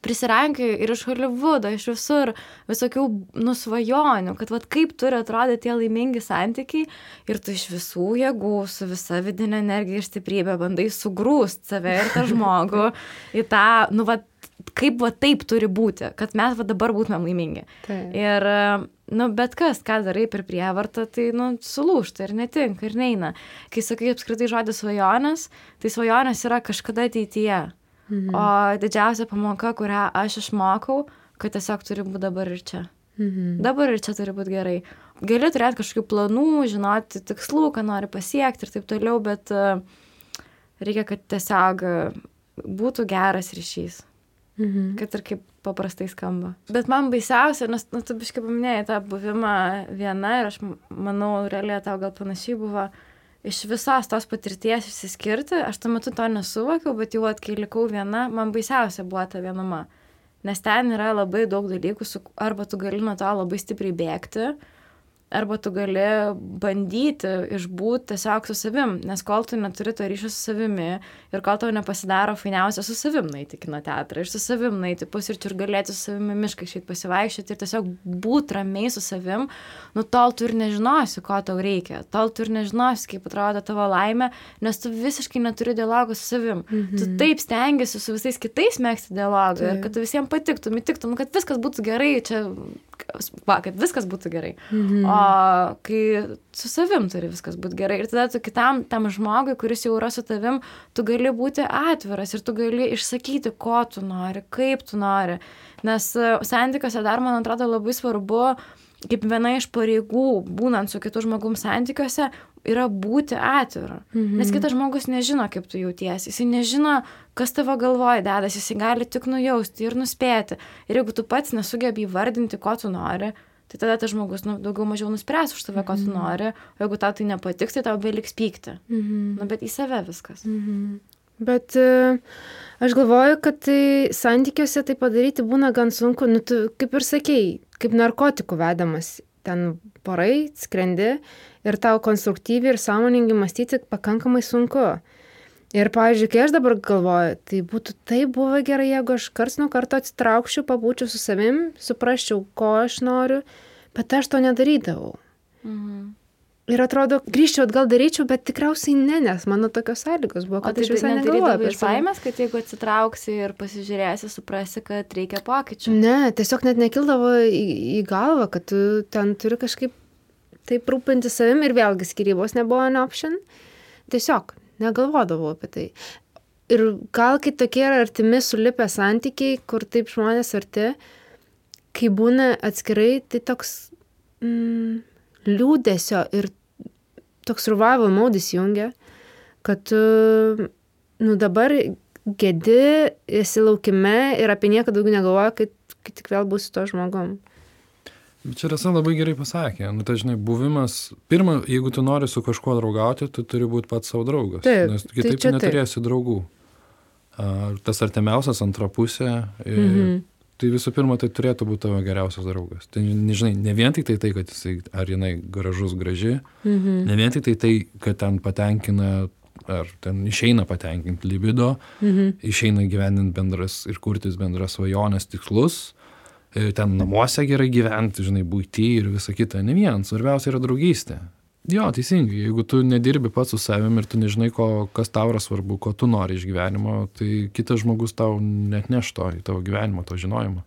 prisirankioju ir iš Holivudo, iš visur visokių nusvajonių, kad kaip turi atrodyti tie laimingi santykiai ir tu iš visų jėgų, su visa vidinė energija ir stiprybė bandai sugrūst save ir tą žmogų į tą, kaip taip turi būti, kad mes dabar būtumėm laimingi. Taip. Ir, bet kas, ką darai per prievartą, tai, sulūžta ir netinka ir neina. Kai sakai apskritai žodį svajonės, tai svajonės yra kažkada ateityje. O didžiausia pamoka, kurią aš išmokau, kad tiesiog turi būti dabar ir čia. Dabar ir čia turi būti gerai. Gali turėti kažkokių planų, žinoti tikslų, ką nori pasiekti ir taip toliau, bet reikia, kad tiesiog būtų geras ryšys. Kad ir kaip paprastai skamba. Bet man baisiausia, nes tu biškai paminėjai tą buvimą viena ir aš manau, realiai tau gal panašiai buvo, iš visos tos patirties išsiskirti, aš tuo metu to nesuvokiau, bet jau kai likau viena, man baisiausia buvo ta vienuma. Nes ten yra labai daug dalykų, arba tu gali nuo to labai stipriai bėgti, arba tu gali bandyti išbūti tiesiog su savim, nes kol tu neturi to ryšio su savimi ir kol tau nepasidaro fainiausia su savim nueiti kino teatrą ir su savim nueiti pusryčių ir galėti su savimi mišką išeiti pasivaikščioti ir tiesiog būti ramiai su savim, tol tu ir nežinosi, ko tau reikia, tol tu ir nežinosi, kaip atrodo tavo laimė, nes tu visiškai neturi dialogo su savim. Tu taip stengiasi su visais kitais megzti dialogą ir kad tu visiems patiktum, kad viskas būtų gerai, kad viskas būtų gerai. O kai su savim turi viskas būti gerai ir tada tu kitam tam žmogui, kuris jau yra su tavim, tu gali būti atviras ir tu gali išsakyti, ko tu nori, kaip tu nori. Nes santykiuose dar, man atrodo, labai svarbu, kaip viena iš pareigų, būnant su kitu žmogum santykiuose, yra būti atviru. Nes kitas žmogus nežino, kaip tu jautiesi. Jis nežino, kas tavo galvoje dedas. Jis gali tik nujausti ir nuspėti. Ir jeigu tu pats nesugebi įvardinti, ko tu nori, tai tada tas žmogus daugiau mažiau nuspręs už tave, ko tu nori. O jeigu tau tai nepatiks, tai tau beliks pykti. Bet į save viskas. Bet aš galvoju, kad tai santykiuose tai padaryti būna gan sunku. Tu kaip ir sakei, kaip narkotikų vedamas. Ten porai, skrendi ir tau konstruktyviai ir sąmoningai mąstyti pakankamai sunku. Ir, pavyzdžiui, kai aš dabar galvoju, tai būtų taip buvo gerai, jeigu aš karts nuo karto atsitraukčiau, pabūčiau su savim, suprasčiau, ko aš noriu, bet aš to nedarydavau. Ir atrodo, grįžčiau atgal daryčiau, bet tikriausiai ne, nes mano tokios sąlygos buvo, kad aš visai negalvoju. Iš baimės, kad jeigu atsitrauksi ir pasižiūrėsi, suprasi, kad reikia pokyčių. Ne, tiesiog net nekildavo į galvą, kad tu ten turi kažkaip taip rūpinti savim ir vėlgi skyrybos nebuvo an option. Tiesiog negalvodavau apie tai. Ir gal kai tokie yra artimi sulipę santykiai, kur taip žmonės arti, kai būna atskirai, tai toks liūdesio ir toks survival mode įsijungia, kad tu dabar gedi, esi laukime ir apie nieką daugiau negalvoja, kai tik vėl būsi to žmogum. Čia Rasa labai gerai pasakė. Tai žinai, buvimas, pirma, jeigu tu nori su kažkuo draugauti, tu turi būti pats savo draugas. Taip, nes kitaip tai neturėsi draugų. Tas artimiausias antra pusė, tai visų pirma, tai turėtų būti tavo geriausias draugas. Tai, nežinai, ne vien tik tai, kad jisai, ar jinai gražus, graži, ne vien tik tai, kad ten patenkina, ar ten išeina patenkinti libido, išeina gyveninti bendras ir kurtis bendras svajonės tikslus, ten namuose gerai gyventi, žinai, buity ir visa kita. Ne vien, svarbiausia yra draugystė. Jo, teisingai, jeigu tu nedirbi pats su savim ir tu nežinai, kas tau yra svarbu, ko tu nori iš gyvenimo, tai kitas žmogus tau net neš to į tavo gyvenimą, to žinojimo.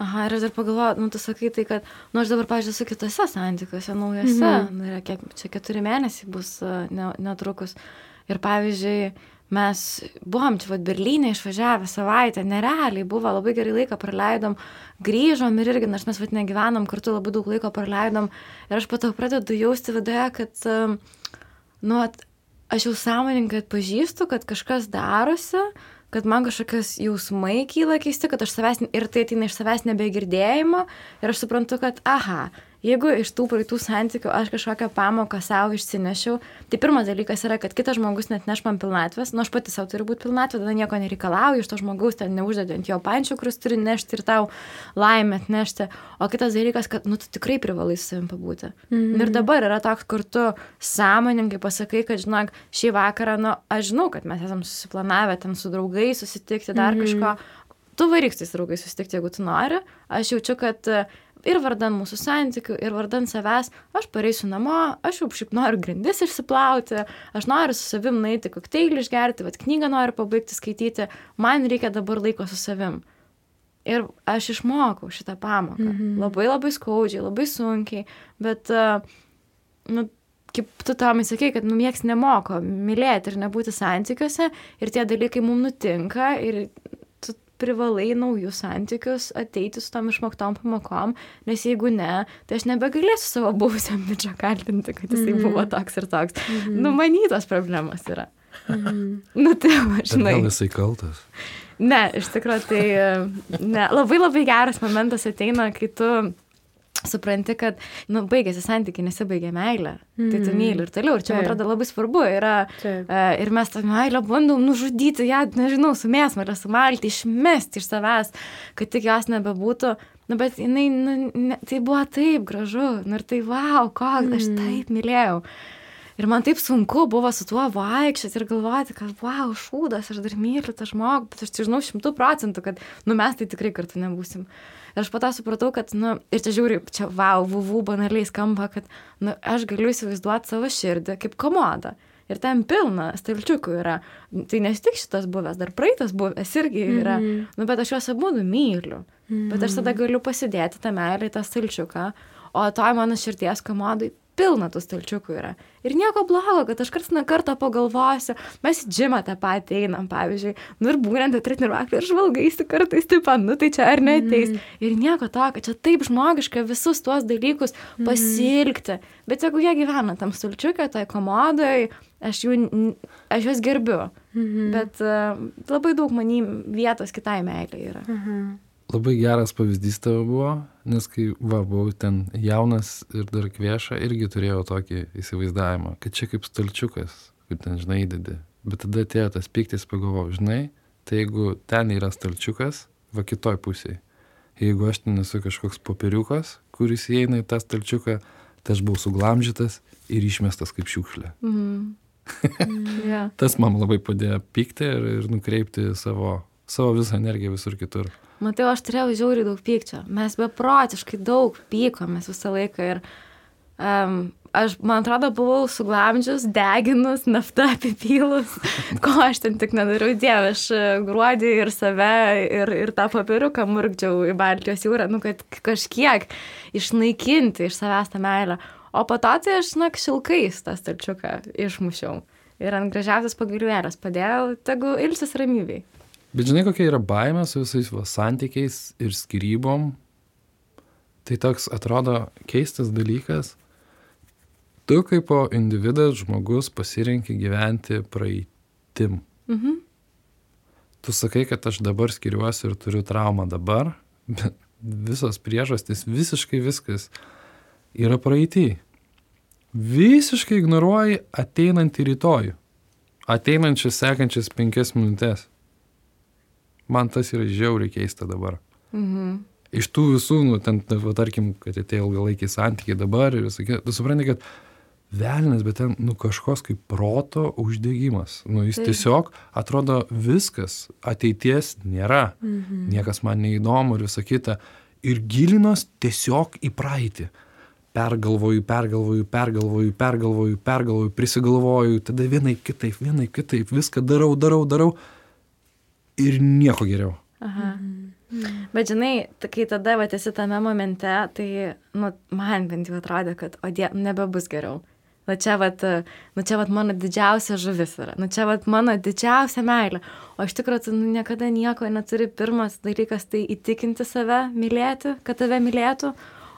Aha, ir aš dar pagalvoju, tu sakai tai, kad, aš dabar, pavyzdžiui, su kitose santykiuose, naujose, kiek čia 4 mėnesiai bus netrukus. Ir pavyzdžiui, mes buvom čia Berlyne išvažiavę savaitę, nerealiai buvo, labai gerai laiką praleidom, grįžom ir irgi, nors mes negyvenom, kartu labai daug laiko praleidom. Ir aš po to pradedu jausti viduje, kad, aš jau sąmoningai atpažįstu, kad kažkas darosi, kad man kažkokios jausmai kyla keisti, kad aš savęs, ir tai ateina iš savęs nebegirdėjimo, ir aš suprantu, kad, jeigu iš tų praeitų santykių aš kažkokią pamoką savo išsinešiau, tai pirmas dalykas yra, kad kitas žmogus net neš man pilnatvės, aš pati savo turiu būti pilnatvė, tada nieko nereikalauju, iš to žmogaus ten neuždedi ant jo pančių, kuris turi nešti ir tau laimę atnešti, o kitas dalykas, kad, tu tikrai privalai su savim pabūti. Ir dabar yra toks, kur tu sąmoningai pasakai, kad, žinok, šį vakarą, aš žinau, kad mes esam susiplanavę ten su draugais susitikti, dar kažko, tu varyk su tais draugais susitikti, jeigu tu nori, aš jaučiu, kad ir vardan mūsų santykių, ir vardan savęs, aš pareisiu namo, aš jau šiaip noriu grindis išsiplauti, aš noriu su savim nueiti kokteilį išgerti, knygą noriu pabaigti skaityti, man reikia dabar laiko su savim. Ir aš išmokau šitą pamoką. Labai labai skaudžiai, labai sunkiai, bet, kaip tu Tomai sakei, kad nieks nemoko mylėti ir nebūti santykiuose, ir tie dalykai mums nutinka, ir privalai naujus santykius ateiti su tom išmoktom pamokom, nes jeigu ne, tai aš nebegalėsiu savo buvusiam bičio kaltinti, kad jisai buvo toks ir toks. Manytos problemas yra. Tai žinai. Gal jisai kaltas? Ne, iš tikrųjų, tai labai labai geras momentas ateina, kai tu supranti, kad, baigėsi santykiai, nesibaigė meilė, tai tu myli ir toliau. Ir čia, man atrodo, labai svarbu yra, ir mes tą meilę bandom nužudyti, ją, nežinau, su mėsmalę, sumalti, išmesti iš savęs, kad tik jos nebebūtų. Bet jinai, tai buvo taip gražu, ir tai, wow, aš taip mylėjau. Ir man taip sunku buvo su tuo vaikščioti ir galvoti, kad, wow, šūdas, aš dar myliu tą žmogų, bet aš tai žinau 100%, kad, mes tai tikrai kartu nebūsim. Ir aš po to supratau, kad, ir čia žiūri, čia, wow, vuvų banaliai skamba, kad, aš galiu įsivaizduoti savo širdį kaip komodą. Ir ten pilna stalčiukų yra. Tai nes tik šitas buvęs, dar praeitas buvęs irgi yra. Bet aš juos abudu myliu. Bet aš tada galiu pasidėti tą meilę į tą stalčiuką. O toj mano širties komodai pilna tų stalčiukų yra. Ir nieko blogo, kad aš kartą pagalvosiu, mes į džimą tą patį einam, pavyzdžiui, ir būnant treniruoklį ir žvalgaisi kartais, tai čia ar neateis. Ir nieko to, kad čia taip žmogiška visus tuos dalykus pasilgti. Bet jeigu jie gyvena tam stalčiuke, tai komodai, aš juos gerbiu. Bet labai daug manim vietos kitai meilė yra. Labai geras pavyzdys tavo buvo, nes kai buvau ten jaunas ir dar kvieša, irgi turėjau tokį įsivaizdavimą, kad čia kaip stalčiukas, kaip ten, žinai, įdedi. Bet tada atėjo tas pyktis, pagalvojau, žinai, tai jeigu ten yra stalčiukas, va kitoj pusėje. Jeigu aš ten esu kažkoks popieriukas, kuris įeina į tą stalčiuką, tai aš buvau suglamžytas ir išmestas kaip šiukšlė. Tas man labai padėjo pykti ir nukreipti savo visą energiją visur kitur. Matai, aš turėjau žiauriai daug pykčio. Mes beprotiškai daug pykomės visą laiką ir aš, man atrodo, buvau suglamdžius, deginus, naftą apipylus, ko aš ten tik nedariau, Dieve, aš gruodį ir save ir tą papiriuką murkdžiau į Baltijos jūrą, kad kažkiek išnaikinti iš savęs tą meilę. O po to tai aš, šilkais tą stalčiuką išmušiau ir ant gražiausias pagalvėlės padėjau, tegu ilsis ramybėj. Bet žinai, kokia yra baimė su visais santykiais ir skyrybom? Tai toks atrodo keistas dalykas. Tu kaip po individas žmogus pasirenki gyventi praeitim. Tu sakai, kad aš dabar skiriuosi ir turiu traumą dabar, bet visos priežastys, visiškai viskas yra praeity. Visiškai ignoruoji ateinantį rytojų. Ateinančias sekančias 5 minutės. Man tas yra žiauriai keista dabar. Iš tų visų, tarkim, kad atėjo ilgalaikiai santykiai dabar ir visai, tu supranti, kad velnias, bet ten, kažkoks kaip proto uždegimas. Jis tiesiog atrodo viskas, ateities nėra. Niekas man neįdomu ir visa kita. Ir gilinos tiesiog į praeitį. pergalvoju, prisigalvoju, tada vienaip kitaip, viską darau ir nieko geriau. Aha. Bet žinai, kai tada esi tame momente, tai man bent jau atrodė, kad nebebus geriau. Čia mano didžiausia žuvis yra. Čia mano didžiausia meilė. O iš tikrųjų, tu niekada nieko neturi. Pirmas dalykas tai įtikinti save mylėti, kad tave mylėtų.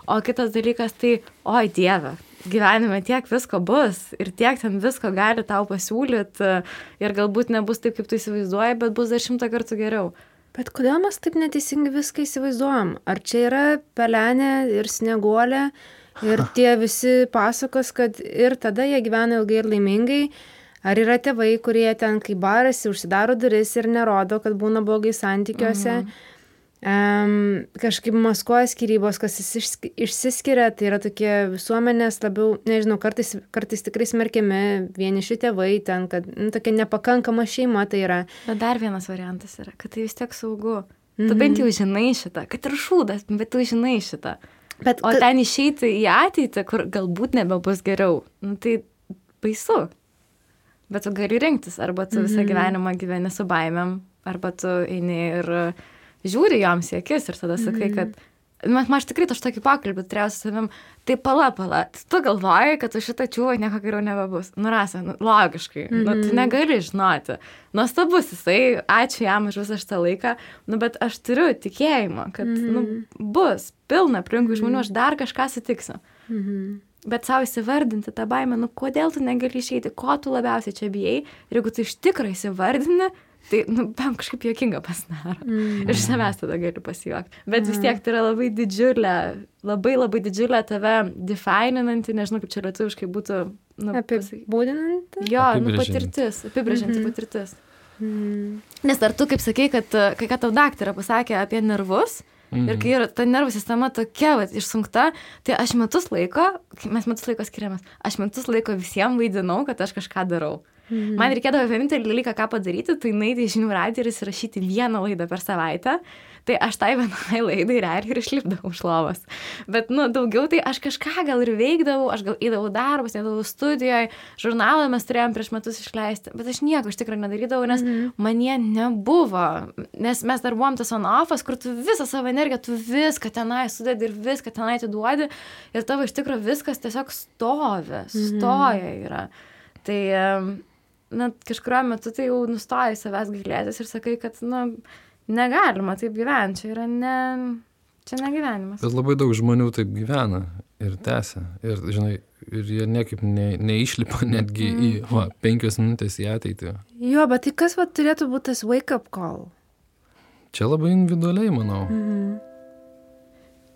O kitas dalykas tai, oi Dieve, gyvenime tiek visko bus ir tiek ten visko gali tau pasiūlyti ir galbūt nebus taip, kaip tu įsivaizduoji, bet bus dar 100 kartų geriau. Bet kodėl mes taip neteisingai viską įsivaizduojam? Ar čia yra pelenė ir snieguolė ir tie visi pasakos, kad ir tada jie gyvena ilgai ir laimingai? Ar yra tėvai, kurie ten, kai barasi, užsidaro duris ir nerodo, kad būna blogai santykiuose? Kažkaip maskuoja skyrybos, kas išsiskiria, tai yra tokie visuomenės labiau, nežinau, kartais tikrai smerkiami vieniši tėvai ten, kad tokia nepakankama šeima tai yra. Bet dar vienas variantas yra, kad tai vis tiek saugu. Tu bent jau žinai šitą, kad ir šūdas, bet tu žinai šitą. O ten išeiti į ateitį, kur galbūt nebebus geriau, tai baisu. Bet tu gali rinktis, arba tu visą gyvenimą gyveni su baimėm, arba tu eini ir žiūri joms į akis ir tada sakai, kad aš tikrai tokį pokalbį turėjau su savim, tai pala, tu galvoji, kad už šitą čiūvą nieko geriau nebebus. Rasa, logiškai, tu negali žinoti. Nuostabus jisai, ačiū jam už visą šitą laiką, bet aš turiu tikėjimą, kad bus pilna aplinkui žmonių, aš dar kažką sutiksiu. Bet savo įsivardinti tą baimę, kodėl tu negali išeiti, ko tu labiausiai čia bijai, ir jeigu tu iš tikrųjų įsivardini, tai, kažkaip juokinga pasidaro. Iš savęs tada gali pasijuokti. Bet vis tiek tai yra labai didžiulė, labai didžiulė tave defininanti, nežinau, kaip čia lietuviškai būtų. Apibūdinanti? Jo, patirtis, apibrėžianti patirtis. Nes ar tu, kaip sakei, kad kai ką tau daktarė pasakė apie nervus, ir kai yra ta nervų sistema tokia išsunkta, tai mes metus laiko skiriamės, aš metus laiko visiems vaidinau, kad aš kažką darau. Man reikėdavo vienintelį dalyką, ką padaryti, tai nueiti į Žinių radiją ir įsirašyti vieną laidą per savaitę. Tai aš tai vienai laidai realiai ir išlipdavau iš lovos. Bet, daugiau tai aš kažką gal ir veikdavau, aš gal įdavau darbus, įdavau studijoje, žurnalą mes turėjom prieš metus išleisti, bet aš nieko iš tikrųjų nedarydavau, nes man jie nebuvo. Nes mes dar buvom tas on-offas, kur tu visą savo energiją, tu viską tenai sudedi ir viską tenai atiduodi ir tavo iš tikrųjų viskas tiesiog stoja yra. Tai kažkuriuo metu tai jau nustoji savęs gailėtis ir sakai, kad, negalima taip gyventi, čia negyvenimas. Bet labai daug žmonių taip gyvena ir tęsia. Ir, žinai, ir jie niekaip neišlipa netgi į 5 minutės į ateitį. Jo, bet tai kas turėtų būti tas wake-up call? Čia labai individualiai, manau.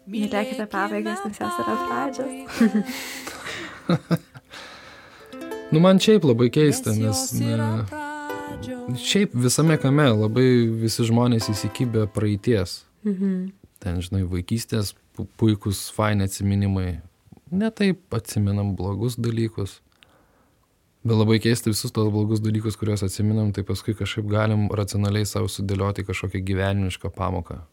Mylėkite pabaigas, nes jos yra pradžios. Man šiaip labai keista, nes šiaip visame kame labai visi žmonės įsikibę praeities. Ten, žinai, vaikystės puikus, faini atsiminimai. Ne taip atsiminam blogus dalykus. Bet labai keista visus tos blogus dalykus, kuriuos atsiminam, tai paskui kažkaip galim racionaliai savo sudėlioti kažkokią gyvenimišką pamoką.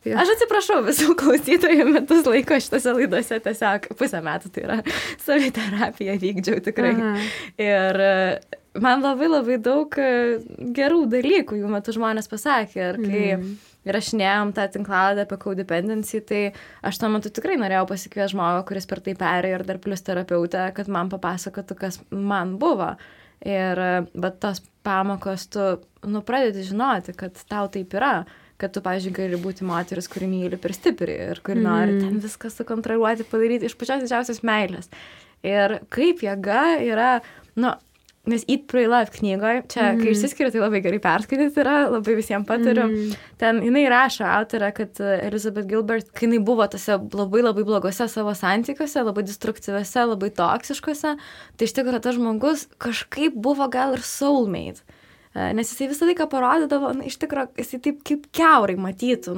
Aš atsiprašau visų klausytojų, metus laiko šitose laidose tiesiog 1,5 metų, tai yra saviterapija vykdžiau tikrai. Ir man labai daug gerų dalykų jų metu žmonės pasakė. Ir kai įrašinėjom tą tinklalaidę apie codependency, tai aš tuo metu tikrai norėjau pasikviesti žmogų, kuris per tai perėjo ir dar plus terapeutę, kad man papasakotų, kas man buvo. Bet tos pamokos tu pradedi žinoti, kad tau taip yra. Kad tu, pavyzdžiui, gali būti moteris, kuri myli per stipriai ir kuri nori ten viską sukontroliuoti, padaryti iš pačios didžiausios meilės. Ir kaip jėga yra, nes Eat, Pray, Love knygoje, čia, kai išsiskiria, tai labai gerai perskaityti yra, labai visiems patariu. Ten jinai rašo autorė, kad Elizabeth Gilbert, kai jinai buvo tose labai blogose savo santykiuose, labai destruktyviuose, labai toksiškuose, tai iš tikrųjų tas žmogus kažkaip buvo gal ir soulmate. Nes jisai visą laiką parodydavo, iš tikrųjų, jisai taip kaip kiaurai matytų,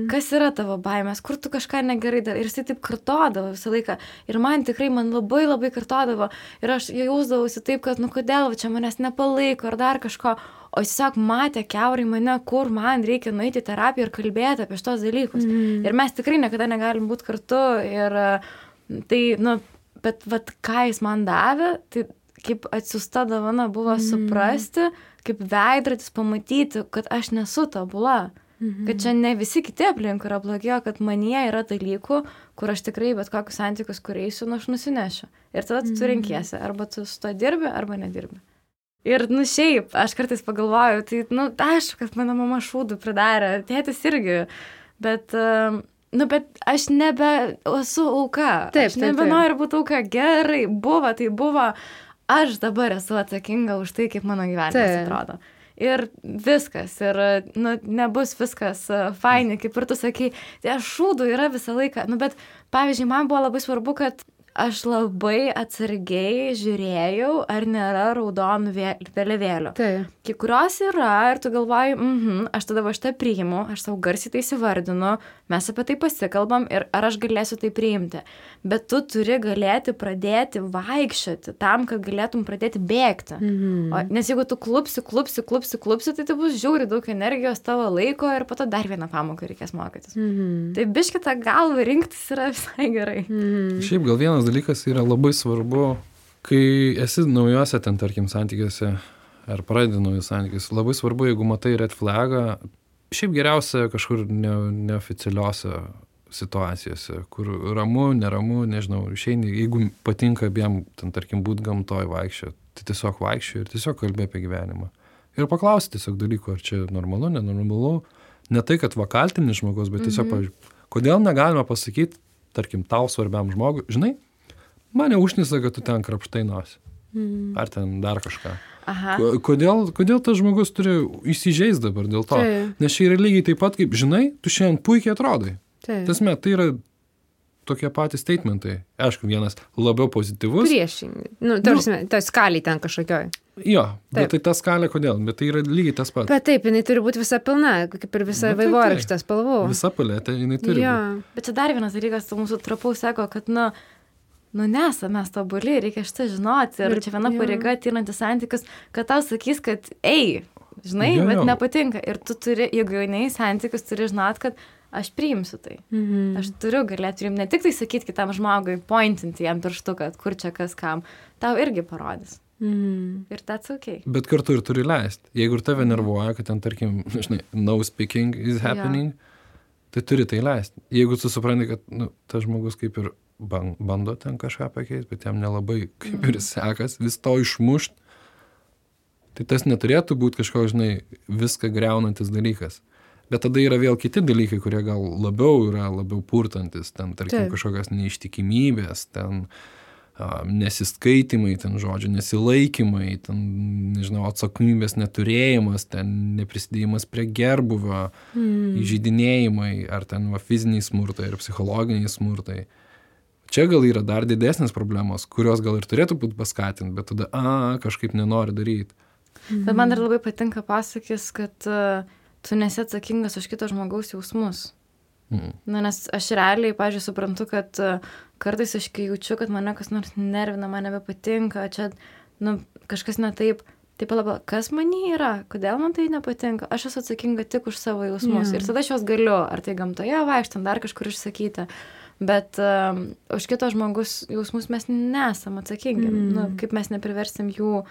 kas yra tavo baimės, kur tu kažką negerai darai. Ir jisai taip kartodavo visą laiką. Ir man labai kartodavo. Ir aš jausdavausi taip, kad, kodėl čia manęs nepalaiko ar dar kažko. O jis tiesiog matė kiaurai mane, kur man reikia nueiti į terapiją ir kalbėti apie šitos dalykus. Ir mes tikrai niekada negalim būti kartu. Ir Tai, nu, bet vat, ką jis man davė, tai kaip atsiųsta dovana buvo suprasti, kaip veidrodis pamatyti, kad aš nesu tobula. Kad čia ne visi kiti aplink yra blogėjo, kad manyje yra dalykų, kur aš tikrai bet kokius santykius, kur eisiu, nu aš nusinešiu. Ir tada tu renkiesi, arba tu su to dirbi, arba nedirbi. Ir, nu šiaip, aš kartais pagalvoju, tai, nu, aišku, kad mano mama šūdų pridarė, tėtis irgi, bet, nu, bet aš nebe esu auka. Aš nebenoriu būti auka. Gerai, buvo, tai buvo. Aš dabar esu atsakinga už tai, kaip mano gyvenimas atrodo. Ir viskas, ir, nu, nebus viskas faini, kaip ir tu sakai, tai šūdų yra visą laiką. Nu, bet, pavyzdžiui, man buvo labai svarbu, kad aš labai atsargiai žiūrėjau, ar nėra raudonų vėliavėlių. Kai kurios yra, ir tu galvoji, aš tada va šitą priimu, aš savo garsiai tai įsivardinu, mes apie tai pasikalbam ir ar aš galėsiu tai priimti. Bet tu turi galėti pradėti vaikščioti tam, kad galėtum pradėti bėgti. Nes jeigu tu klupsi, tai tai bus žiauriai daug energijos tavo laiko ir po to dar vieną pamoką reikės mokytis. Tai biškį tą galvą rinktis yra visai gerai. Šiaip gal vienas dalykas yra labai svarbu, kai esi naujuose ten, tarkim, santykiuose ar pradedi naujus santykius, labai svarbu, jeigu matai red flagą, šiaip geriausia kažkur neoficialiuose situacijose, kur ramu, neramu, nežinau, išeini, jeigu patinka abiem, ten, tarkim, būt gamtoj vaikščio, tai tiesiog vaikščio ir tiesiog kalbė apie gyvenimą. Ir paklausti tiesiog dalykų, ar čia normalu, nenormalu, ne tai, kad vakaltinis žmogus, bet tiesiog, pavyzdžiui, kodėl negalima pasakyti, tarkim, tau svarbiam žmogui, žinai, mane užnisa, kad tu ten krapštai nosį. Ar ten dar kažką. Kodėl tas žmogus turi įsižeist dabar dėl to? Nes čia yra lygiai taip pat, kaip, žinai, tu šiandien puikiai atrodai. Tasme, tai yra tokie patys statementai. Aišku, vienas labiau pozityvus. Priešingai. Nu, ta skalė ten kažkokioj. Jo, bet tai ta skalė kodėl? Bet tai yra lygiai tas pats. Bet taip, jinai turi būti visa pilna, kaip ir visa vaivorykštės spalvų. Visa paletė, jinai turi būti. Bet čia dar vienas dalykas, mūsų trapaus sako, kad, nu, nesame mes tobuli, reikia šitą žinoti. Ir čia viena pareiga ateinantis santykius, kad tau sakys, kad žinai, bet nepatinka. Ir tu turi, jeigu jau nei santykius, turi žinot, kad aš priimsiu tai. Aš turiu galėti priimti, ne tik tai sakyti kitam žmogui, pointinti jam pirštu, kad kur čia kas kam, tau irgi parodys. Ir that's okay. Bet kartu ir turi leisti. Jeigu ir tave nervuoja, kad ten, tarkim, žinai, no speaking is happening, tai turi tai leisti. Jeigu tu supranti, kad, nu, tas žmogus kaip ir bando ten kažką pakeisti, bet jam nelabai kaip ir sekas vis to išmušt, tai tas neturėtų būti kažkoks, žinai, viską griaunantis dalykas. Bet tada yra vėl kiti dalykai, kurie gal labiau purtantis, ten, tarkim, kažkokios neištikimybės, ten nesiskaitimai, ten žodžiu, nesilaikymai, ten, nežinau, atsakomybės neturėjimas, ten neprisidėjimas prie gerbuvio, įžeidinėjimai, ar ten fiziniai smurtai ir psichologiniai smurtai. Čia gal yra dar didesnės problemos, kurios gal ir turėtų būti paskatinti, bet tada, kažkaip nenori daryti. Bet man dar labai patinka pasakys, kad tu nesi atsakingas už kito žmogaus jausmus. Na, nes aš realiai, pavyzdžiui, suprantu, kad kartais aš kai jaučiu, kad mane kas nors nervina, man nebepatinka, čia, nu, kažkas ne taip, tai palaba, kas manyje yra, kodėl man tai nepatinka, aš esu atsakinga tik už savo jausmus. Ir tada aš juos galiu, ar tai gamtoje vaikštant, dar kažkur išsakyti. Bet už kito žmogus jausmus mes nesam atsakingi. Nu, kaip mes nepriversim jų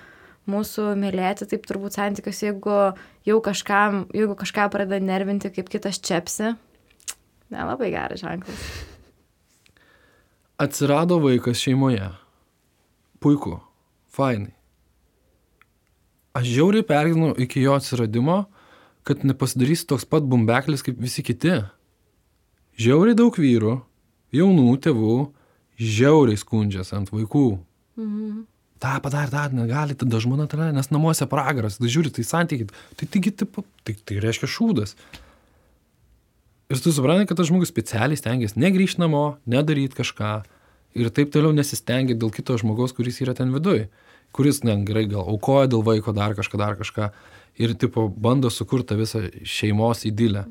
mūsų mylėti, taip turbūt santykius, jeigu kažką pradeda nervinti, kaip kitas čepsi, nelabai geras ženklas. Atsirado vaikas šeimoje. Puiku. Fainai. Aš žiauriai pergyvenu iki jo atsiradimo, kad nepasidarysi toks pat bumbeklis kaip visi kiti. Žiauriai daug vyrų, jaunų tėvų, žiauriai skundžias ant vaikų. Ta padarė, negali, tada žmona tada, nes namuose pragaras, tada žiūri, tai santykiai, tai reiškia šūdas. Ir tu supranti, kad tas žmogus specialiai stengiasi negrįžti namo, nedaryti kažką ir taip toliau nesistengia dėl kito žmogaus, kuris yra ten viduj, kuris, gerai, gal aukoja dėl vaiko dar kažką ir, tipo, bando sukurti visą šeimos idilę.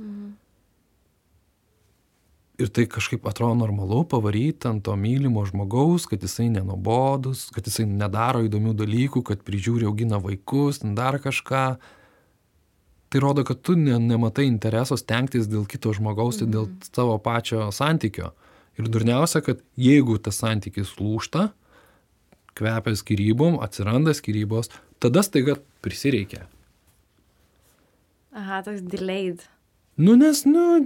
Ir tai kažkaip atrodo normalu pavaryti ant to mylimo žmogaus, kad jisai nenubodus, kad jisai nedaro įdomių dalykų, kad prižiūri, augina vaikus, dar kažką. Tai rodo, kad tu nematai intereso stengtis dėl kito žmogaus, dėl savo pačio santykio. Ir durniausia, kad jeigu tas santykis lūžta, kvepia skyrybom, atsiranda skyrybos, tada staiga prisireikia. Aha, toks delayed. Nes,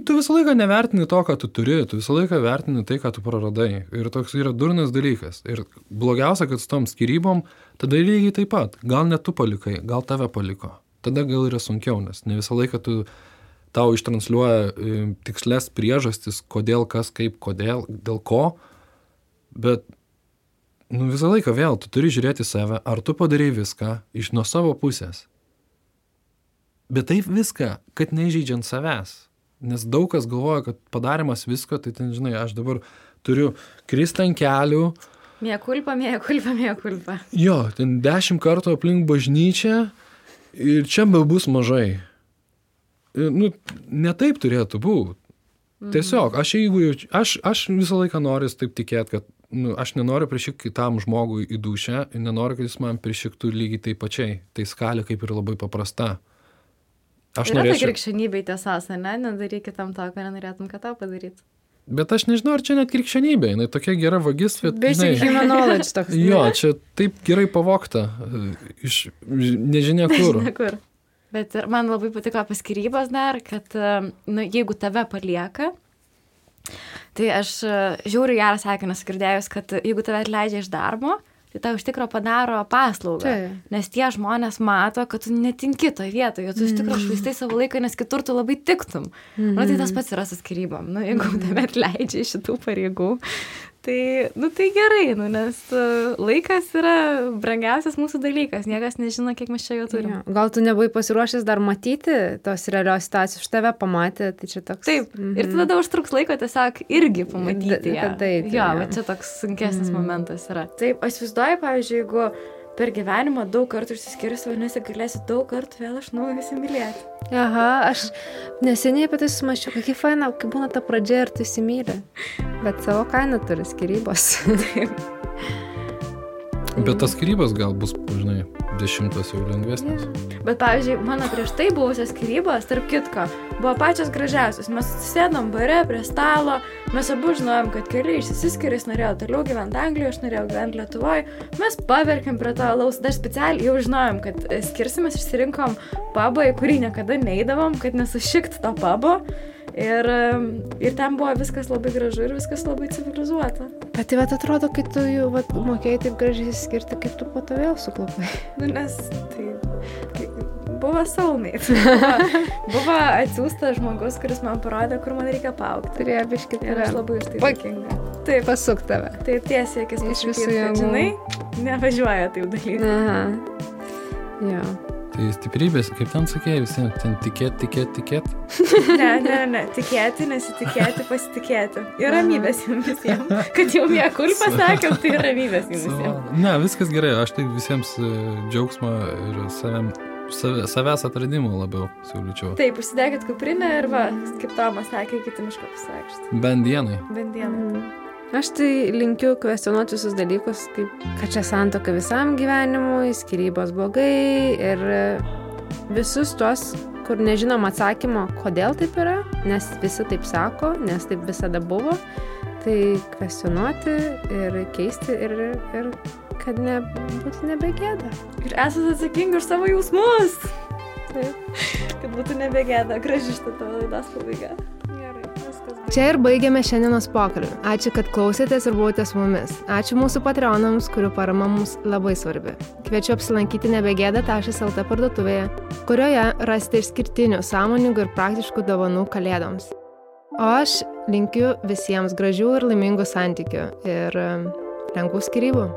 tu visą laiką nevertini to, ką tu turi, tu visą laiką vertini tai, ką tu praradai. Ir toks yra durnas dalykas. Ir blogiausia, kad su tom skyrybom, tada lygiai taip pat. Gal ne tu palikai, gal tave paliko. Tada gal yra sunkiau, nes ne visą laiką tau ištransliuoja tikslės priežastis, kodėl, kas, kaip, kodėl, dėl ko. Bet visą laiką vėl tu turi žiūrėti save, ar tu padarei viską iš nuo savo pusės. Bet taip viską, kad neįžeidžiant savęs. Nes daug kas galvoja, kad padarimas visko, tai ten, žinai, aš dabar turiu kristi ant kelių. Mea culpa. Jo, ten 10 kartų aplink bažnyčią ir čia bus mažai. Ne taip turėtų būti. Tiesiog, aš visą laiką noriu taip tikėti, kad aš nenoriu prišikti kitam žmogui į dušę ir nenoriu, kad jis man prišiktų lygiai taip pačiai. Tai skalė kaip ir labai paprasta. Yra tai krikščionybė tiesas, ne? Nedaryk kitam to, ką nenorėtum, kad tau padaryt. Bet aš nežinau, ar čia net krikščionybė. Jinai tokia gera vagis, bet... Basic human knowledge toks. Jo, čia taip gerai pavogta iš nežinia kur. Bet ir man labai patiko apie skyrybas dar, kad jeigu tave palieka, tai aš žiūriu gerą sakinį girdėjus, kad jeigu tave atleidžia iš darbo, tai tau iš tikro padaro paslaugą. Nes tie žmonės mato, kad tu netinki toje vietoje, tu iš tikro švaistai savo laiką, nes kitur tu labai tiktum. Tai tas pats yra su skyrybom. Jeigu tave atleidžia iš šitų pareigų, tai gerai, nes laikas yra brangiausias mūsų dalykas. Niekas nežino, kiek mes čia jo turime. Gal tu nebuvai pasiruošęs dar matyti tos realios situacijos, už tave pamatė, tai čia toks... Taip, ir tada užtruks laiko tiesiog irgi pamatyti ją. Taip. Jo, bet čia toks sunkesnis momentas yra. Taip, aš įsivaizduoju, pavyzdžiui, jeigu per gyvenimą daug kartų išsiskyrus, vadinasi, galėsi daug kartų vėl iš naujo įsimylėti. Aha, aš neseniai apie tai sumaščiau, kokia faina, kai būna ta pradžia ir tu įsimylė. Bet savo kainą turi skyrybos. Bet tas skyrybos gal bus, žinai, 10 jau lengvesnis. Bet, pavyzdžiui, mano prieš tai buvusios skyrybos, tarp kitko, buvo pačios gražiausios. Mes sėdom bare prie stalo, mes abu žinojom, kad keliai išsiskiria, jis norėjo toliau gyventi Anglijoje, aš norėjau gyventi Lietuvoje. Mes paverkėm prie to alaus, dar specialiai jau žinojom, kad skirsimės, išsirinkom pubą, į kurį niekada neįdavom, kad nesušikt to pubo. Ir ten buvo viskas labai gražu ir viskas labai civilizuota. Bet tai atrodo, kai tu jau mokėjai taip gražiai skirti, kaip tu po to vėl suklupai. Nes tai buvo soulmate. Buvo atsiųstas žmogus, kuris man parodė, kur man reikia paaugti. Turėjo biškį ir aš labai už tai dėkinga. Taip, pasuk tave. Tai tiesiai, akis pasakyti, kad žinai, nevažiuoja taip dalyti. Aha. Jo. Tai stiprybės, kaip ten sakėjai, visiems ten tikėt. Ne, tikėti, nesitikėti, pasitikėti. Ir ramybės jums visiems. Kad jau mea culpa sakiau, tai ramybės jums visiems. Ne, viskas gerai, aš tai visiems džiaugsmą ir savęs atradimų labiau siūlyčiau. Taip, užsidėkit kuprinę ir va, kaip Tomas sakė, kiti miško pasivaikščioti. Bent dienai. Aš tai linkiu kvestionuoti visus dalykus, kaip kad čia santuoka visam gyvenimui, skyrybos blogai ir visus tuos, kur nežinom atsakymo, kodėl taip yra, nes visi taip sako, nes taip visada buvo, tai kvestionuoti ir keisti ir kad būtų nebegėda. Ir esate atsakingi už savo jausmus. Taip, kad būtų nebegėda. Graži šitą tavo laidos pabaiga. Čia ir baigiame šiandienos pokalbį. Ačiū, kad klausėtės ir buvote su mumis. Ačiū mūsų patreonams, kurių parama mums labai svarbi. Kviečiu apsilankyti nebegėda.lt parduotuvėje, kurioje rasite išskirtinių, sąmoningų ir praktiškų dovanų kalėdoms. O aš linkiu visiems gražių ir laimingų santykių ir lengvų skyrybų.